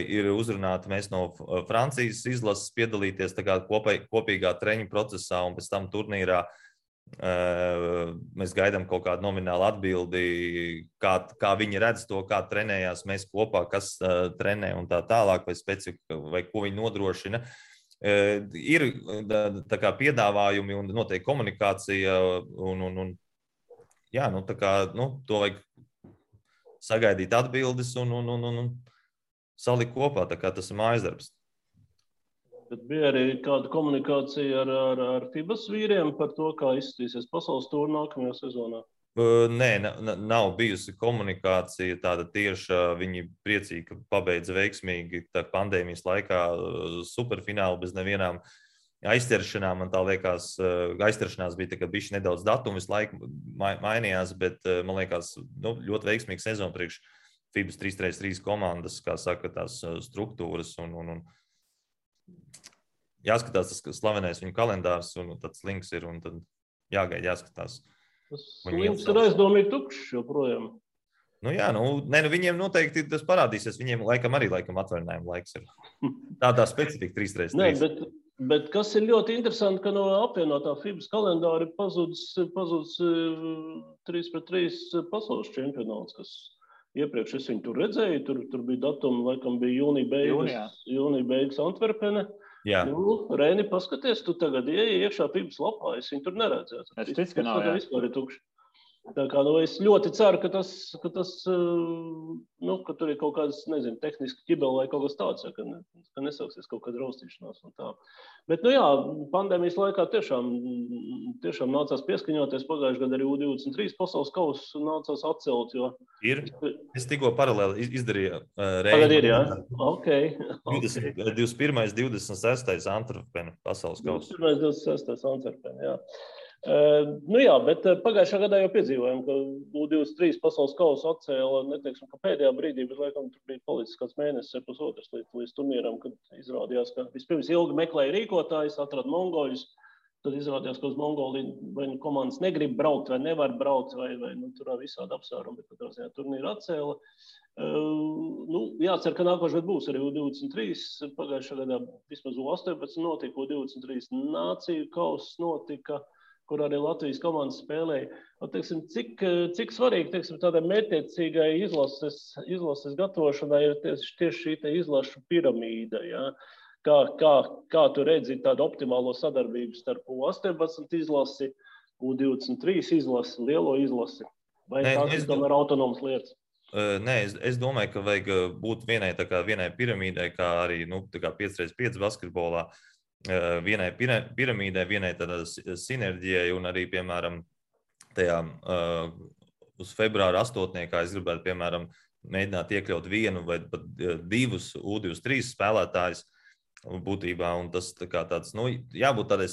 ir uzrunāti mēs no Francijas izlases piedalīties tā kā kopīgā treņu procesā un pēc tam turnīrā mēs gaidām kaut kādu nominālu atbildi, kā viņi redz to, kā trenējās mēs kopā, kas trenē un tā tālāk, vai specifika, vai ko viņi nodrošina. Ir tā kā piedāvājumi un noteikti komunikācija to vajag sagaidīt atbildes un salikt kopā, tā kā tas ir mājasdarbs. Bet bija arī kāda komunikācija ar FIBAS vīriem par to, kā izskatīsies pasaules tūri nākamajā sezonā? Nē, nav bijusi komunikācija tāda tieša. Viņi priecīgi, ka pabeidza veiksmīgi pandēmijas laikā superfinālu bez nevienām aizķeršanām. Man tā liekas, aizķeršanās bija tā, ka bišķi nedaudz datumu visu laiku mainījās, bet man liekas ļoti veiksmīgi sezona priekš FIBAS 3x3 komandas, kā saka, tās struktūras un jāskatās tas slavenais viņu kalendārs un tāds links ir un tad jāgaida, jāskatās. Slims ir aizdomīgi tukšs joprojām. Viņiem noteikti tas parādīsies. Viņiem laikam atvaļinājuma laiks ir. Tādā specifika 3x3. Bet kas ir ļoti interesanti, ka no apvienotā FIBAS kalendāra ir pazudis 3x3 pasaules čempionāts, kas iepriekš es viņu tur redzēju. Tur bija datumi, laikam bija jūnija beigas Antverpene. Jā. Reini, paskaties, tu tagad iekšā FIBAS lapā, es viņu tur neredzēju. Es ticu, ka nav, jā. Vispār ir tukši. Tā kā, es ļoti ceru, ka ka tur ir kaut kāds, nezinu, tehniski ķibeli vai kaut kas tāds, ka nesauksies kaut kāda raustīšanās un tā. Bet, pandēmijas laikā tiešām nācās pieskaņoties. Pagājušajā gadā arī U23 pasaules kausu nācās atcelt, jo... Es tikko paralēli izdarīju Tagad ir, jā? Ok. 21. 26. Antverpene pasaules kausu. 21. 26. Antverpene, jā. Bet pagājušā gadā jau piedzīvojām, ka U23 pasaules kausu atcēla, neteiksim, ka pēdējā brīdī, bet laikam tur bija palicis kāds mēnesis, pusotrs līdz turnīram, kad izrādījās, ka vispirms ilgi meklēja rīkotājus, atrada mongoļus, tad izrādījās, ka uz Mongoliju vai komandas negrib braukt vai nevar braukt, vai tur visādi apsvērumi, bet katrā ziņā turnīru atcēla. Jācer, ka nākošais gads būs arī U23, pagājušā gadā vismaz U18 notika, U23 nāciju kauss notika, kur arī Latvijas komandas spēlēja. Cik svarīgi, tādai mērķtiecīgai izlases gatavošanai ir tieši šī izlašu piramīda, ja? Kā tu redzi tādu optimālo sadarbību starp U18 izlasi, U23 izlasi, lielo izlasi? Vai tās ir tomēr autonomas lietas? Nē, es domāju, ka vajag būt vienai piramīdai, kā arī 5x5 basketbolā. Vienai piramīdai, vienai tādā sinerģijai un arī, piemēram, tajā uz februāra 8. es gribētu, piemēram, mēģināt iekļaut vienu vai pat divus U23 spēlētājus būtībā, un tas tāds, jābūt tādai,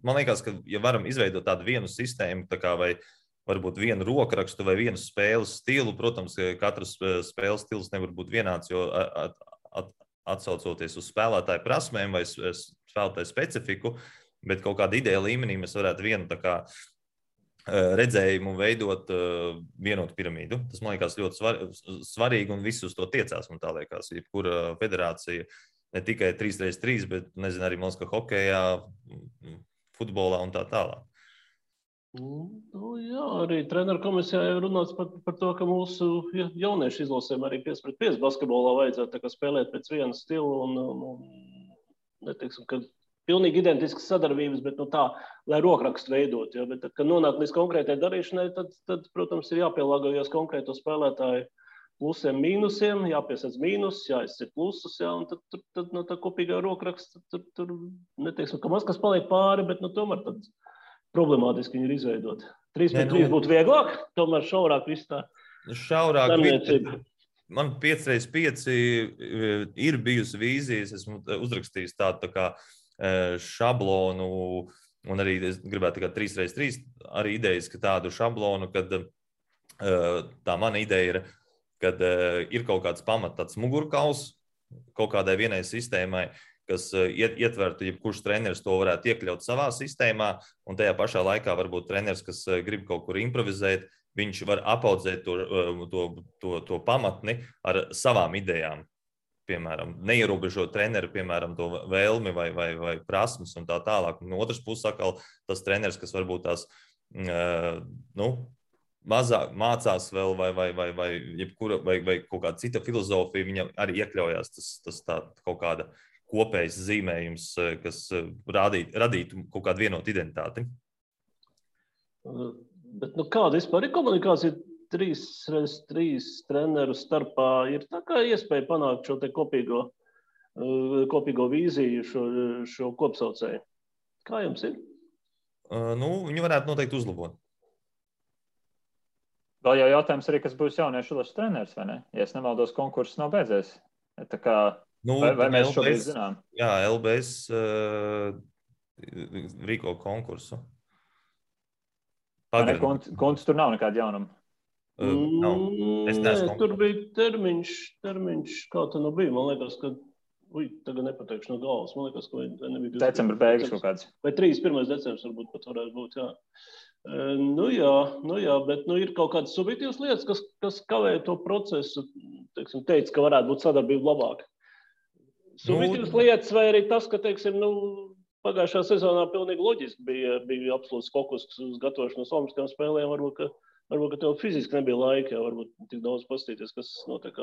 man liekas, ka, ja varam izveidot tādu vienu sistēmu, vai varbūt vienu rokrakstu vai vienu spēles stilu, protams, katrs spēles stils nevar būt vienāds, jo atsaucoties uz spēlētāju prasmēm vai spēlētāju specifiku, bet kaut kāda ideja līmenī mēs varētu vienu redzējumu veidot vienotu piramīdu. Tas, man liekas, ļoti svarīgi un visus to tiecās, man tā liekas. Jebkura federācija, ne tikai 3x3, bet, nezinu, arī Moskva hokejā, futbolā un tā tālāk. Jā, arī treneru komisijā jau runāts par to, ka mūsu jauniešu izlasēm arī 5x5 basketbolā vajadzētu spēlēt pēc viena stila un neteiksim, ka pilnīgi identiskas sadarbības, bet tā, lai rokrakstu veidot. Ja? Bet tad, kad nonāk līdz konkrētai darīšanai, tad, protams, ir jāpielāgojas konkrēto spēlētāju plusiem, mīnusiem, jāpiesac mīnus, jāizcir plusus, ja? Un tad no tā kopīgā rokraksta tur neteiksim, ka maz kas paliek pāri, bet tomēr tad problemātiski viņi ir izveidot. 3x3 būtu vieglāk, tomēr šaurāk viss tā. Šaurāk. Man 5x5 ir bijusi vīzijas, esmu uzrakstījis tādu šablonu, un arī es gribētu 3x3 arī idejas, ka tādu šablonu, kad tā mana ideja ir, kad ir kaut kāds tāds mugurkauls kaut kādai vienai sistēmai, kas ietvertu, jebkurš treneris to varētu iekļaut savā sistēmā, un tajā pašā laikā varbūt treneris, kas grib kaut kur improvizēt, viņš var apaudzēt to pamatni ar savām idejām. Piemēram, neierobežot treneri, piemēram, to vēlmi vai prasmes un tā tālāk. Un otrs puses atkal tas treneris, kas varbūt tās mazāk mācās vēl vai kaut kāda cita filozofija, viņam arī iekļaujās tas tā kaut kāda kopējs zīmējums, kas radītu kaut kādu vienotu identitāti. Bet kāda vispār ir komunikācija 3x3 treneru starpā? Ir tā kā iespēja panākt šo te kopīgo vīziju, šo kopsaucēju. Kā jums ir? Viņi varētu noteikti uzlabot. Vēl jau jautājums arī, kas būs jauniešu izlases treneris, vai ne? Ja es nemaldos, konkurss nav beidzies. Tā kā vai mēs šobrīd zinām? Jā, LBS rīko konkursu. Konts tur nav nekāda jaunuma? Tur bija termiņš, kā tā bija. Man liekas, ka, tagad nepateikšu no galvas. Man liekas, ka nebija... Decembra beigas kaut kāds. Vai 31. decembris varbūt pat varētu būt, jā. Nu jā, bet ir kaut kādas subjektīvas lietas, kas kavē to procesu. Teiksim, teica, ka varētu būt sadarbība labāka. Subjektīvas lietas vai arī tas, ka, teiksim, pagājušā sezonā pilnīgi loģiski bija absolūts fokus uz gatavošanos olimpiskajām spēlēm. Varbūt, ka tev fiziski nebija laika, jau varbūt tik daudz paskatīties, kas notiek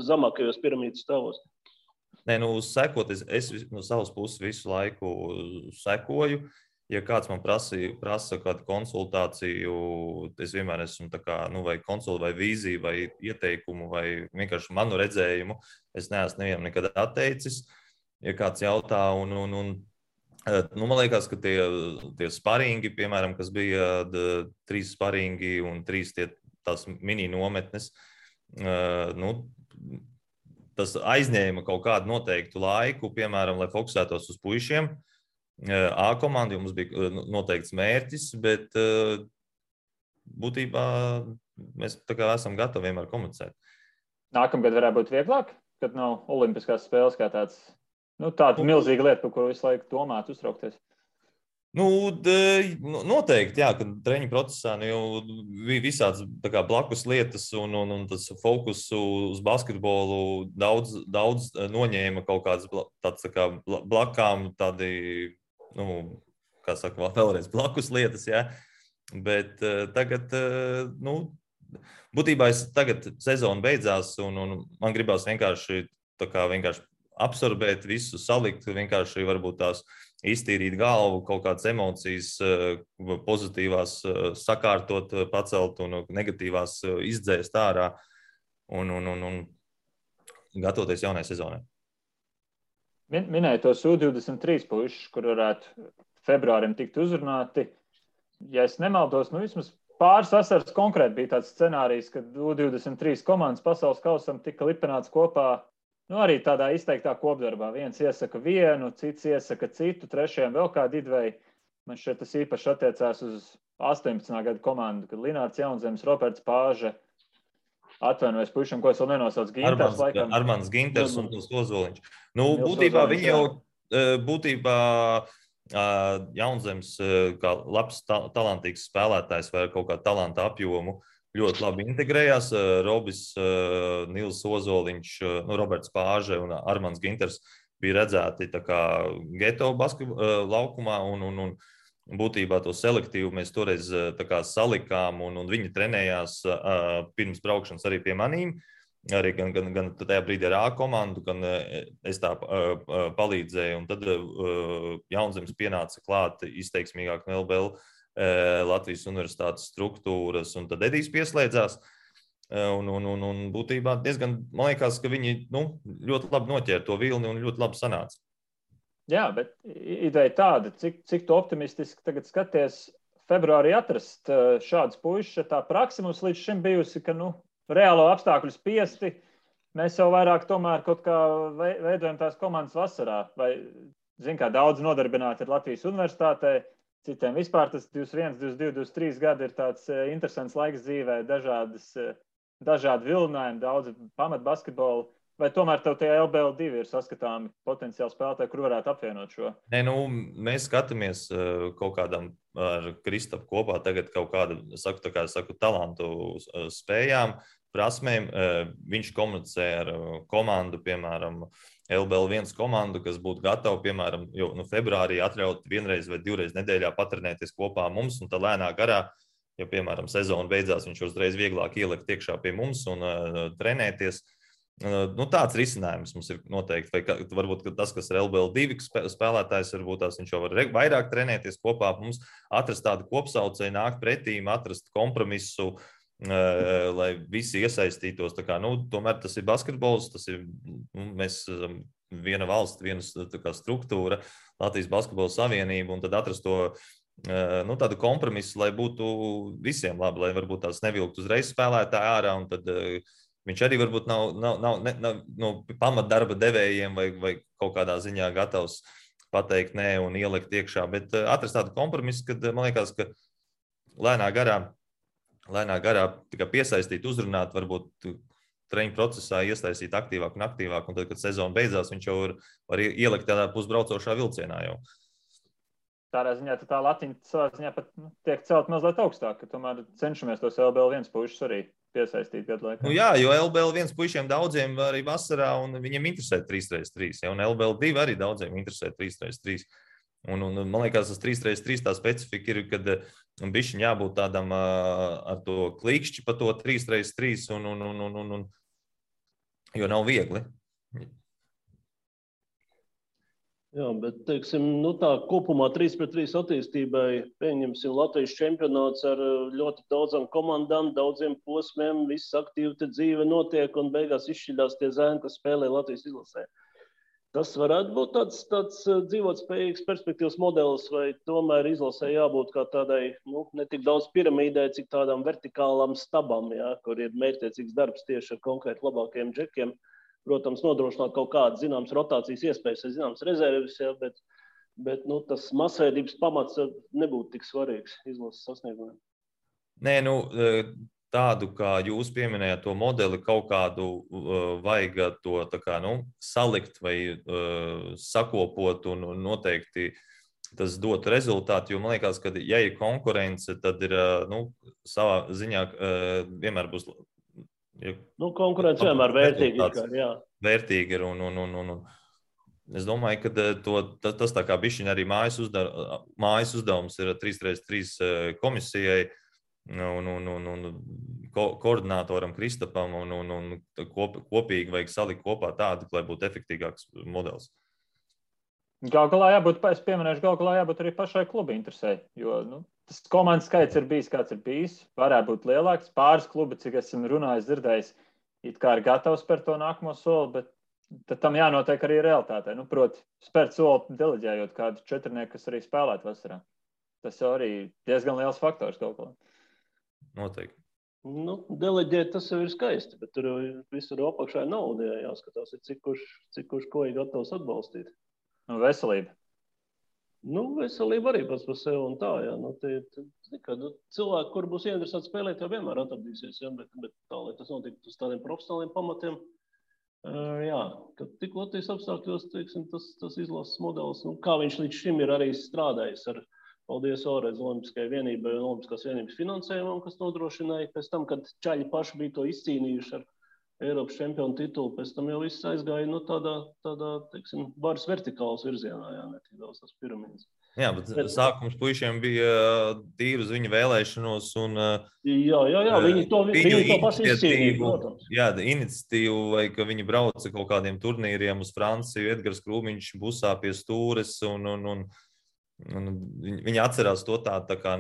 zemākajos piramīdas stāvos. Nē, sekot, es no savas puses visu laiku sekoju. Ja kāds man prasa kādu konsultāciju, es vienmēr esmu tā kā, vai konsultāciju, vai vīziju, vai ieteikumu, vai vienkārši manu redzējumu. Es neesmu nevienam nekad atteicis, ja kāds jautā. Man liekas, ka tie sparingi, piemēram, kas bija 3 sparingi un 3 tās mini nometnes, tas aizņēma kaut kādu noteiktu laiku, piemēram, lai fokusētos uz puišiem. A komanda mums bija noteikts mērķis, bet būtībā mēs tā kā esam gatavi vienmēr komunicēt. Nākamgad varētu būt vieglāk, kad nav olimpiskās spēles kā tāds, tāda milzīga lieta, par kuru visu laiku domāt, uztraukties. Noteikti, jā, ka treniņu procesā jau visāds blakus lietas un tas fokus uz basketbolu daudz noņēma kaut kādas tāds blakām, tādi, kā saka, vēlreiz blakus lietas, jā. Bet tagad, būtībā tagad sezona beidzās un man gribās vienkārši absorbēt visu, salikt, vienkārši varbūt tās iztīrīt galvu, kaut kādas emocijas pozitīvās sakārtot, pacelt un negatīvās izdzēst ārā un gatavoties jaunai sezonai. Minēja tos U23 puišus, kur varētu februārim tikt uzrunāti. Ja es nemaldos, vismaz pāris vasaras konkrēti bija tāds scenārijs, kad U23 komandas pasaules kausam tika lipināts kopā. Arī tādā izteiktā kopdarbā. Viens iesaka vienu, cits iesaka citu, trešajam vēl kādu idveju. Man šeit tas īpaši attiecās uz 18. gadu komandu, kad Linārds Jaunzems, Roberts Pāže, atvainojas puišam, ko es vēl nenosaucu, Ginters laikam. Armāns Ginters un Ozoliņš. Būtībā viņi jau, Jaunzems, kā labs, talantīgs spēlētājs vai kaut kā talanta apjomu, ļoti labi integrējās. Robis, Nils Ozoliņš, Roberts Pāže un Armāns Ginters bija redzēti tā kā geto basketbola laukumā un būtībā to selektīvu mēs toreiz tā kā salikām un viņi trenējās pirms braukšanas arī pie manīm. Arī gan tajā brīdī ar A komandu, gan es tā palīdzēju. Un tad Jaunzems pienāca klāt izteiksmīgāk no LBL Latvijas universitātes struktūras, un tad Edijs pieslēdzās. Un būtībā diezgan, man liekas, ka viņi ļoti labi noķēra to vilni un ļoti labi sanāca. Jā, bet ideja tāda, cik tu optimistiski tagad skaties februārī atrast šādus puišus. Tā praksa mums līdz šim bijusi, ka reālo apstākļu spiesti mēs jau vairāk tomēr kaut kā veidojam tās komandas vasarā. Vai, kā daudz nodarbināti ir Latvijas universitātē, citiem vispār tas 21, 22, 23 gadi ir tāds interesants laiks dzīvē, dažādi vilinājumi, daudz pamat basketbolu. Vai tomēr tev tie LBL2 ir saskatāmi potenciāli spēlētāji, kur varētu apvienot šo? Nē, mēs skatāmies kaut kādam ar Kristapu kopā tagad kaut kādu, talantu spējām, prasmēm. Viņš komunicē ar komandu, piemēram, LBL1 komandu, kas būtu gatava, piemēram, februārī atļaut vienreiz vai divreiz nedēļā patrenēties kopā mums, un tā lēnā garā, ja, piemēram, sezona beidzās, viņš uzreiz vieglāk ielikt iekšā pie mums un trenēties. Tāds risinājums mums ir noteikti. Vai varbūt tas, kas ir LBL2 spēlētājs, varbūt viņš jau var vairāk trenēties kopā mums, atrast tādu kopsaucēju, nākt pretīm, atrast kompromisu, lai visi iesaistītos. Tomēr tas ir basketbols, tas ir mēs viena valsts, viena struktūra, Latvijas basketbola savienība, un tad atrast to tādu kompromisu, lai būtu visiem labi, lai varbūt tās nevilkt uzreiz spēlētāji ārā, un tad viņš arī varbūt nav pamatdarba devējiem vai kaut kādā ziņā gatavs pateikt nē un ielikt iekšā, bet atrast tādu kompromisu, kad man liekas, ka lēnā garā tikai piesaistīt, uzrunāt, varbūt treniņu procesā iesaistīt aktīvāk un aktīvāk, un tad, kad sezona beidzās, viņš jau var ielikt tādā pusbraucošā vilcienā jau. tādā ziņā tā latiņa savā ziņā pat tiek celt mazliet augstāk, ka tomēr cenšamies tos LBL1 pušus arī piesaistīt gadu laikā. Nu jā, jo LBL1 puišiem daudziem arī vasarā, un viņiem interesē 3x3, ja, un LBL2 arī daudziem interesē 3x3. Un man liekas, tas 3x3 tā specifika ir, kad bišķiņ jābūt tādam ar to klikšķi pa to 3x3, jo nav viegli. Jā, bet, teiksim, tā kopumā 3x3 attīstībai pieņemsim Latvijas čempionāts ar ļoti daudzām komandām, daudziem posmiem, viss aktīvi te dzīve notiek un beigās izšķidās tie zēni, kas spēlē Latvijas izlasē. Tas varētu būt tāds dzīvotspējīgs perspektīvas modelis, vai tomēr izlasē jābūt kā tādai, ne tik daudz piramīdai, cik tādām vertikālām stabām, jā, kur ir mērķtiecīgs darbs tieši ar konkrēti labākajiem džekiem. Protams, nodrošināt kaut kādas zināmas rotācijas iespējas, zināmas rezerves, jā, bet tas masveidības pamats nebūtu tik svarīgs izlases sasniegumiem. Nē, tādu, kā jūs pieminējāt to modeli, kaut kādu vajag to tā kā, salikt vai sakopot un noteikti tas dot rezultātu, jo man liekas, ka ja ir konkurence, tad ir, savā ziņā vienmēr būs. Konkurence vienmēr vērtīga ir, jā. Vērtīga ir un es domāju, ka tas tā kā bišķiņ arī mājas uzdevums ir 3x3 komisijai, un koordinātoram Kristapam un kopīgi vajag salikt kopā tādu, lai būtu efektīgāks modelis. Galu galā jābūt arī pašai kluba interesē, jo tas komandas skaits ir bijis, kāds ir bijis, varētu būt lielāks. Pāris klubi, cik esmu runājis, dzirdējis, it kā ir gatavs par to nākamo soli, bet tad tam jānotiek arī realitātē. Proti, spērt soli deleģējot kādu četrnieku, kas arī spēlētu vasarā. Tas jau arī diezgan liels faktors kaut ko. Noteikti. Deleģēt tas jau ir skaisti, bet tur visur apakšā nauda jāskatās, cik kurš ko ir gatavs atbalstīt. Veselība. Veselība arī pats par sevi un tā, jā. Cilvēki, kur būs ieinteresēti spēlēt, jau vienmēr atradīsies, jā, bet tā, lai tas notiktu uz tādiem profesionāliem pamatiem, jā, kad tik Latvijas apstākļos, teiksim, tas izlases modelis, kā viņš līdz šim ir arī strādājis ar paldies vēlreiz Olimpiskajai vienībai un Olimpiskās vienības finansējumam, kas nodrošināja pēc tam, kad čaļi paši bija to izcīnījuši ar Eiropas čempionu titulu, pēc tam jau viss aizgāja tādā, teiksim, varas vertikālas virzienā, jā, ne tik daudz tās piramīdas. Jā, bet sākums puišiem bija tīri uz viņu vēlēšanos un Jā, viņi to paši izcīnīja, protams. Jā, iniciatīvu, vai ka viņi brauca kaut kādiem turnīriem uz Franciju, Edgars Krūmiņš busā pie stūres un viņi atcerās to tā kā,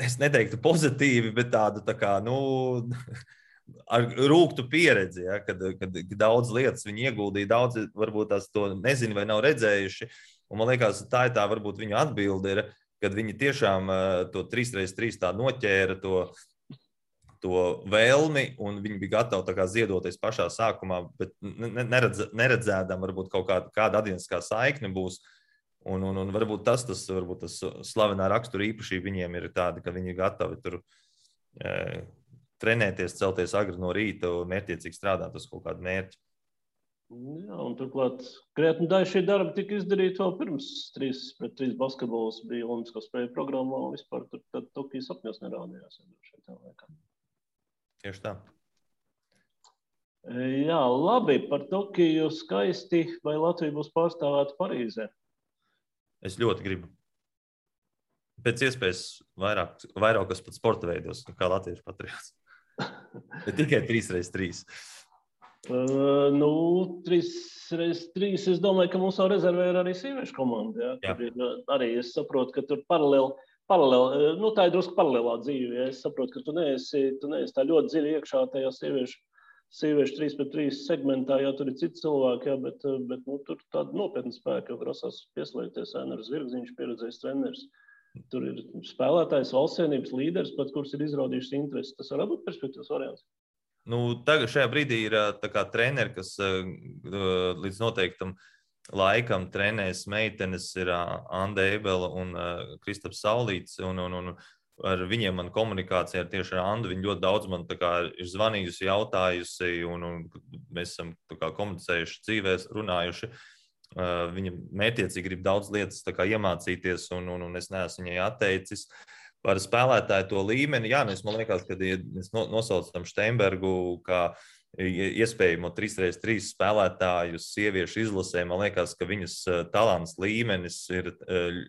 es neteiktu pozitīvi, bet tādu tā kā, ar rūgtu pieredzi, ja, kad daudz lietas viņi ieguldīja, daudz varbūt tās to nezinu vai nav redzējuši, un man liekas, tā ir tā varbūt viņu atbilde ir, kad viņi tiešām to 3x3 tā noķēra to vēlmi, un viņi bija gatavi tā kā ziedoties pašā sākumā, bet neredzēdam varbūt kaut kāda atdieniskā saikne būs. Un varbūt tas slavenā rakstura īpašība viņiem ir tāda, ka viņi ir gatavi tur trenēties, celties agri no rīta un mērķiecīgi strādāt uz kaut kādu mērķi. Jā, un turklāt krietni daļa šī darba tika izdarīta vēl pirms 3x3 basketbols bija Olimpisko spēļu programmā un vispār tad Tokijas sapņos nerādījās. Tieši tā. Jā, labi, par Tokiju skaisti, vai Latvija būs pārstāvēta Parīzē? Es ļoti gribu. Pēc iespējas vairākas pat sporta veidos, kā latviešu patriots. Bet tikai 3x3. 3x3, es domāju, ka mums jau rezervē ir arī sieviešu komanda. Jā. Arī es saprotu, ka tur paralēli, tā ir drusku paralēlā dzīve. Ja? Es saprotu, ka tu neesi tā ļoti dziļi iekšā tajā sieviešu 3x3 segmentā, jā, tur ir citi cilvēki, jā, bet tur tāda nopietna spēka, jo grasās pieslēgties Ēners Zvirgziņš, pieredzējis treneris. Tur ir spēlētājs, valsts vienības līderis, pat kurš ir izrādījušas interesi. Tas var būt perspektīvas variants. Tagad šajā brīdī ir tā kā treneri, kas līdz noteiktam laikam trenēs meitenes, ir Anda Ebela un Kristaps Saulīts, un ar viņiem man komunikācija tieši ar Andu. Viņi ļoti daudz man tā kā ir zvanījusi, jautājusi, un mēs esam tā kā komunicējuši dzīvēs, runājuši. viņa mērķiecīgi grib daudz lietas tā kā iemācīties, un es neesmu viņai atteicis. Par spēlētāju to līmeni, jā, man liekas, ka mēs nosaucam Steinbergu kā iespējamo 3x3 spēlētāju sieviešu izlasē. Man liekas, ka viņas talants līmenis ir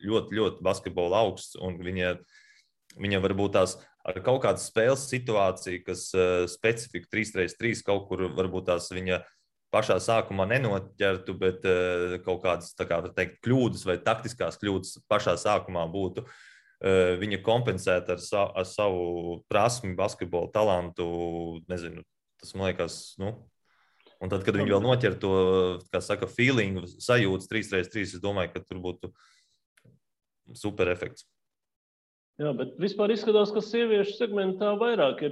ļoti, ļoti basketbola augsts, un viņa varbūt tās ar kaut kādas spēles situāciju, kas specifika 3x3 kaut kur varbūt tās viņa pašā sākumā nenoķertu, bet kaut kādas, tā kā teikt, kļūdas vai taktiskās kļūdas pašā sākumā būtu. Viņa kompensēta ar savu prasmi, basketbola talantu, nezinu, tas man liekas, un tad, kad viņi vēl noķer to, kā saka, feelingu, sajūtas 3x3, es domāju, ka tur būtu super efekts. Jā, bet vispār izskatās, ka sieviešu segmentā vairāk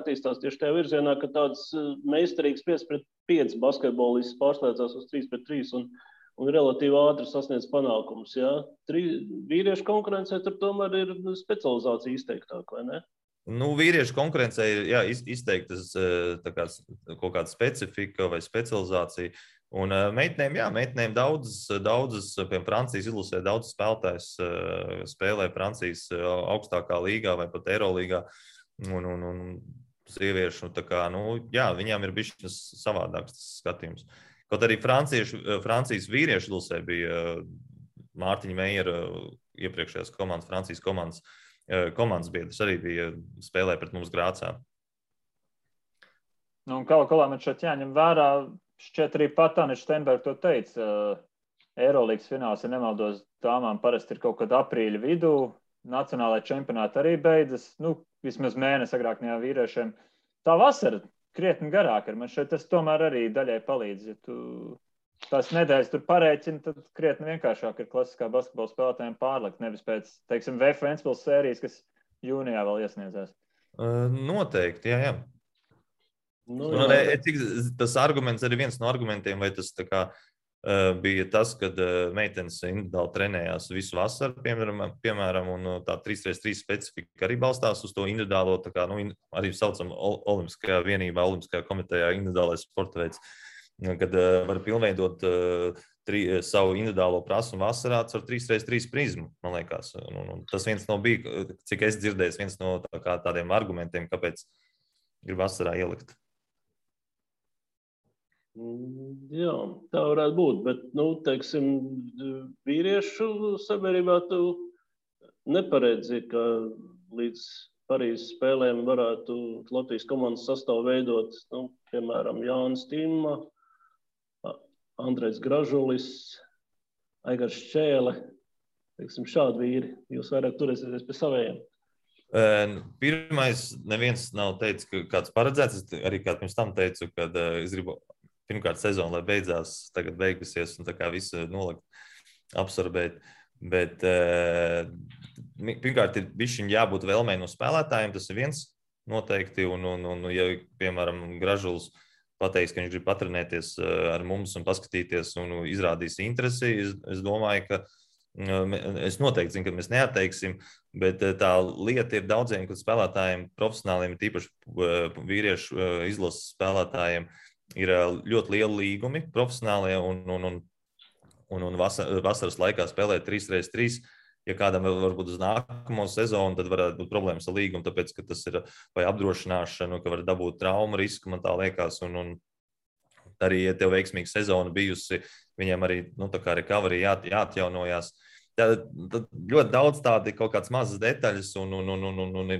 attīstās tieši tajā virzienā, ka tāds meistarīgs 5-5 basketbolists pārslēdzās uz 3-3 un relatīvi ātri sasniedz panākumus. Jā. Vīriešu konkurencē tur tomēr ir specializācija izteiktāk, vai ne? Vīriešu konkurencē ir izteiktas kaut kāda specifika vai specializācija. Un meitenēm daudzas, piemēram, Francijas izlasē daudz spēlētājs spēlē Francijas augstākā līgā vai pat Eirolīgā. Un sieviešu, viņām ir bišķiņas savādāks skatījums. Kaut arī Francijas vīriešu izlasē bija Mārtiņa Meijera iepriekšējās komandas, Francijas komandas biedrs arī bija spēlē pret mums Grācā. Un kaut kā man šeit jāņem vērā, šķiet arī Tāne Steinberga to teica, Eirolīgas fināls, ja nemaldos, dāmām parasti ir kaut kad aprīļa vidū, nacionālajā čempionāta arī beidzas, vismaz mēnesi agrāk nekā vīriešiem. Tā vasara krietni garāk ir, man šeit tas tomēr arī daļai palīdz, ja tu tās nedēļas tur parēķini, tad krietni vienkāršāk ir klasiskā basketbola spēlētājiem pārlikt, nevis pēc, teiksim, VF Ventspils sērijas, kas jūnijā vēl iesniedzās. Noteikti, jā. Tas arguments arī viens no argumentiem, vai tas tā kā bija tas, kad meitenes individuāli trenējās visu vasaru, piemēram, un tā 3x3 specifika arī balstās uz to individuālo, tā kā, arī saucam Olimpiskajā vienībā, Olimpiskajā komitejā individuālais sporta veids, kad var pilnveidot savu individuālo prasmu vasarā ar 3x3 prizmu, man liekas. Un tas viens no bija, cik es dzirdēju, viens no tādiem argumentiem, kāpēc grib vasarā ielikt. Jā, tā varētu būt, bet, teiksim, vīriešu sabiedrībā tu neparedzi, ka līdz Parīzes spēlēm varētu Latvijas komandas sastāvu veidot, piemēram, Jānis Timma, Andrejs Gražulis, Aigars Šķēle, teiksim, šādi vīri. Jūs vairāk turēsieties pie savējiem. Pirmais, neviens nav teicis, ka kāds paredzēts. Es arī kā pirms tam teicu, kad es gribu pirmkārt sezonu, lai beidzās, tagad beigusies un tā kā visu nolikt, absorbēt. Bet pirmkārt ir bišķiņ jābūt vēlmei no spēlētājiem, tas ir viens noteikti. Un ja, piemēram, Gražuls pateiks, ka viņš grib patrenēties ar mums un paskatīties un izrādīs interesi, es domāju, ka es noteikti zinu, ka mēs neatteiksim, bet tā lieta ir daudziem spēlētājiem, profesionāliem, tīpaši vīriešu izlases spēlētājiem, ir ļoti lieli līgumi profesionālie un vasaras laikā spēlē 3x3. Ja kādam varbūt uz nākamo sezonu, tad varētu būt problēmas ar līgumu, tāpēc, ka tas ir vai apdrošināšana, ka var dabūt traumu risku, man tā liekas, un arī, ja tev veiksmīga sezona bijusi, viņiem arī, tā kā recovery jāatjaunojās. Tad ļoti daudz tādi kaut kāds mazas detaļas, un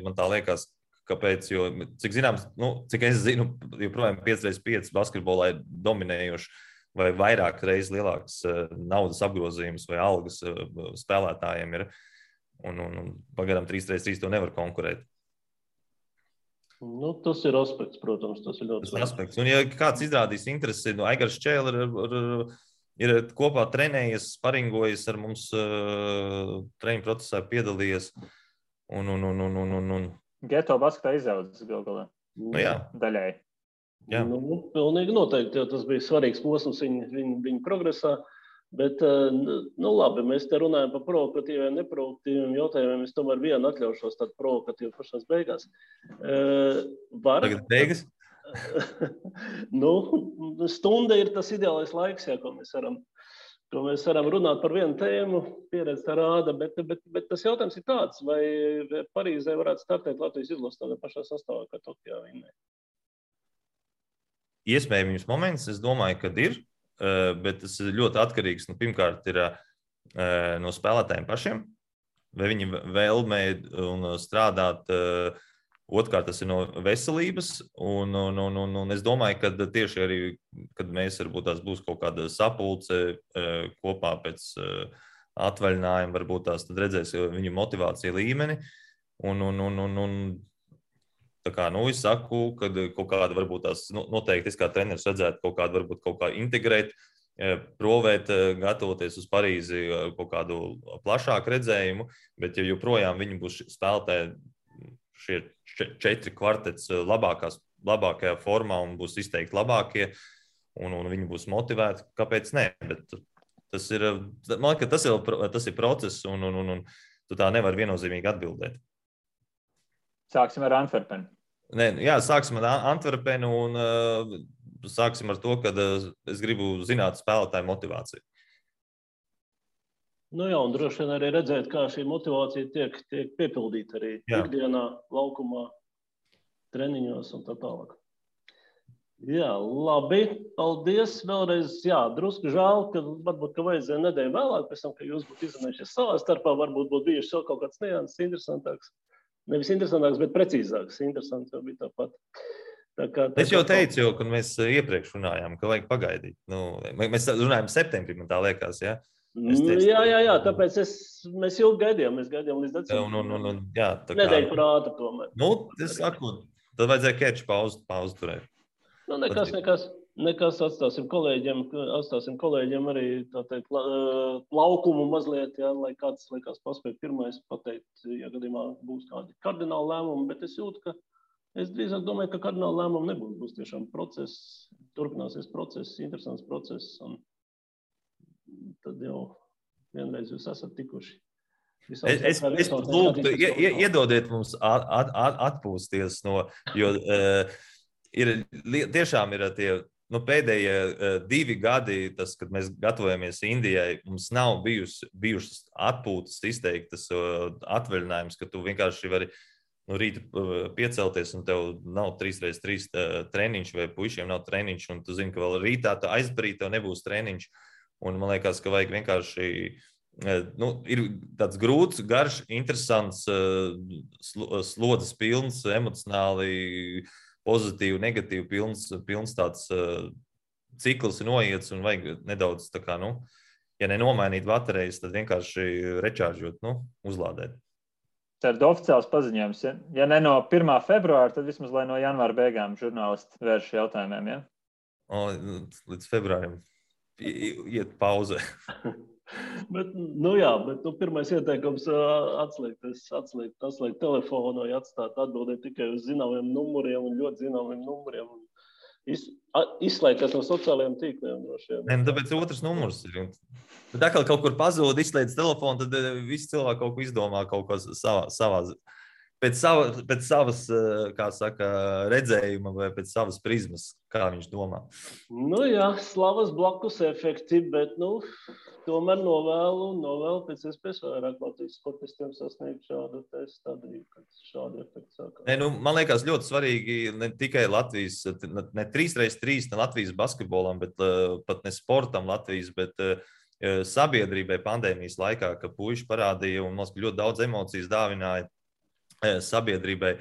man tā liekas, kāpēc, jo, cik zināms, cik es zinu, joprojām 5x5 basketbolā ir dominējoši vai vairāk reizes lielāks naudas apgrozījums vai algas spēlētājiem ir, un pagaidām 3x3 to nevar konkurēt. Tas ir aspekts, protams, tas ir ļoti aspekts. Un ja kāds izrādīs interesi, Aigars Šķēle ir kopā trenējies, sparingojies ar mums treniņu procesā piedalījies un Geto basketā izaudzis galā. Jā. Daļai. Jā. Pilnīgi noteikti, jo tas bija svarīgs posms viņa progresā. Bet, labi, mēs te runājam par provokatīviem, neproduktīviem jautājumiem. Es tomēr vienu atļaušos tādu provokatīvu pašās beigās. Tagad beigas? Stunda ir tas ideālais laiks, jā, ko mēs varam runāt par vienu tēmu, pieredze tā rāda, bet tas jautājums ir tāds, vai Parīzē varētu startēt Latvijas izlases tādā pašā sastāvā, kā Tokijā vinnē? Iespējams moments, es domāju, ka ir, bet tas ir ļoti atkarīgs. Pirmkārt, ir no spēlētājiem pašiem, vai viņi vēlmē un strādāt. Otrkārt, tas ir no veselības. Un es domāju, ka tieši arī, kad mēs varbūt tās būs kaut kāda sapulce kopā pēc atvaļinājuma, varbūt tās tad redzēs viņu motivāciju līmeni. Tā kā, es saku, ka kaut kāda varbūt tās noteikti es kā treneris redzētu kaut kādu, varbūt kaut kā integrēt, provēt, gatavoties uz Parīzi kaut kādu plašāku redzējumu, bet ja joprojām viņi būs spēlētāji šie 4 kvartets labākajā formā un būs izteikti labākie, un viņi būs motivēti, kāpēc nē? Bet tas ir, man liekas, tas ir process, un tu tā nevar viennozīmīgi atbildēt. Sāksim ar Antverpenu. Jā, sāksim ar Antverpenu un sāksim ar to, ka es gribu zināt spēlētāju motivāciju. Jā, un droši vien arī redzēt, kā šī motivācija tiek piepildīta arī ikdienā, laukumā, treniņos un tā tālāk. Jā, labi, paldies vēlreiz. Jā, drusku žēl, ka varbūt vajadzēja nedēļu vēlāk, pēc tam, ka jūs būtu izrunājušies savā starpā, varbūt būtu bijuši vēl kaut kāds nianses interesantāks. Nevis interesantāks, bet precīzāks. Interesants jau bija tāpat. Es jau teicu, kad mēs iepriekš runājām, ka vajag pagaidīt. Mēs runājam septembrī, man tā liekas, ja? Jā, tāpēc mēs ilgi gaidījām. Mēs gaidījām līdz decembrim. Nedēļu par ātru tomēr. Es saku, tad vajadzēja keču pauzi turēt. Nekas atstāsim kolēģiem arī tā teikt, laukumu mazliet, jā, lai kāds paspēj pirmais pateikt, ja gadījumā būs kādi kardināli lēmumi, bet es jūtu, ka es drīzāk domāju, ka kardināli lēmumi nebūs. Būs tiešām process, turpināsies process, interesants process, un tad jau vienreiz jūs esat tikuši. Es lūgtu, iedodiet mums atpūsties jo tiešām ir tie pēdējie 2 gadi, kad mēs gatavojamies Indijai, mums nav bijušas atpūtas izteiktas atvaļinājums, ka tu vienkārši vari rīta piecelties un tev nav 3x3 treniņš vai puišiem nav treniņš, un tu zini, ka vēl rītā aizbarīt tev nebūs treniņš, un man liekas, ka vajag vienkārši, ir tāds grūts, garš, interesants, slodzes pilns, emocionāli pozitīvu, negatīvu, pilns tāds cikls ir noiets un vajag nedaudz tā kā, ja nenomainīt baterijas, tad vienkārši rečāržot, uzlādēt. Tā ir oficiāls paziņojums. Ja ne no 1. februāra, tad vismaz lai no janvāra beigām žurnālisti vērš jautājumiem, ja? Līdz februārim iet pauze. Bet pirmais ieteikums atslēgt telefonu, atstāt atbildēt tikai uz zināmiem numuriem un ļoti zināmiem numuriem. Izslēgties no sociālajiem tīkliem. Tāpēc otrs numurs ir. Tā kā kaut kur pazūd, izslēdz telefonu, tad visi cilvēki kaut ko izdomā kaut ko savā pēc savas, kā saka, redzējuma vai pēc savas prizmas, kā viņš domā. Slavas blakus efekti, bet, tomēr novēlu pēc iespējas vairāk Latvijas sportistiem sasniegt šādu stadiju, kad šādi efekti sākās. Man liekas ļoti svarīgi ne tikai Latvijas, ne 3x3, ne Latvijas basketbolam, bet pat ne sportam Latvijas, bet sabiedrībai pandēmijas laikā, ka puiši parādīja un mums ļoti daudz emocijas dāvināja sabiedrībai,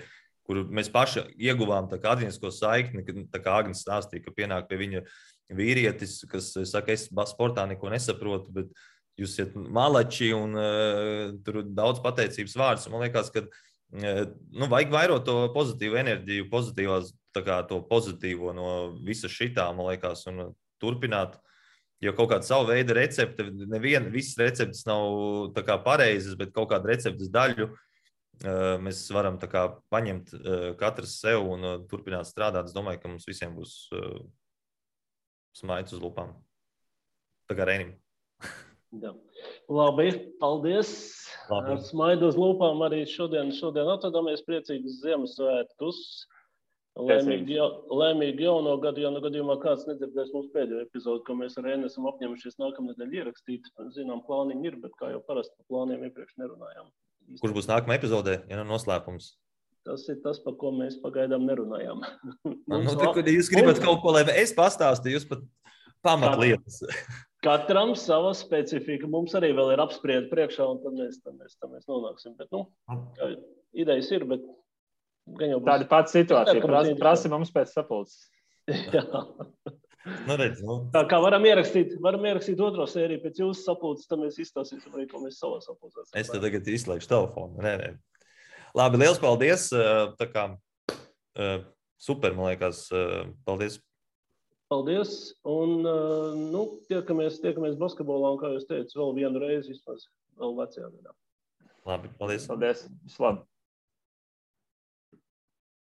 kur mēs paši ieguvām tā kā atziņasko saikni, tā kā Agnes stāstīja, ka pienāk pie viņa vīrietis, kas saka, es sportā neko nesaprotu, bet jūs esat malači un tur daudz pateicības vārdus. Man liekas, ka vajag vairot to pozitīvu enerģiju, to pozitīvo no visa šitā, man liekas, un turpināt. Jo kaut kāda savu veidu recepte, visas receptes nav tā kā pareizas, bet kaut kādu receptes daļu mēs varam tā kā paņemt katrs sev un turpināt strādāt. Es domāju, ka mums visiem būs smaids uz lupām. Tā kā Reinim. Labi, paldies. Ar smaidu uz lupām arī šodien atvadāmies. Priecīgus Ziemassvētkus. Lēmīgi jauno gadu, ja gadījumā kāds nedzirdēs mūsu pēdējo epizodu, ko mēs ar Ēnu esam apņemušies nākamnedēļ ierakstīt. Zinām, plāniņi ir, bet kā jau parasti par plāniem iepriekš nerunājām. Kurš būs nākamā epizodē, ja nav noslēpums? Tas ir tas, par ko mēs pagaidām nerunājām. Jūs gribat kaut ko, lai es pastāstu, jūs pat pamatlietas. Katram sava specifika. Mums arī vēl ir apspriedi priekšā, un tad mēs nonāksim. Bet, idejas ir, bet tāda pati situācija. Prasi mums pēc sapulces. Jā. Tā kā varam ierakstīt otro sēriju pēc jūsu sapulces, tad mēs izstāstīsim arī, ko mēs savā sapulcēs. Es te tagad izslēgšu telefonu. Nē. Labi, liels paldies. Tā kā super, man liekas. Paldies. Paldies. Un tiekamies basketbolā, un kā jūs teicu, vēl vienu reizi vismaz vēl vecajā gadā. Labi, paldies. Paldies. Vislabāk.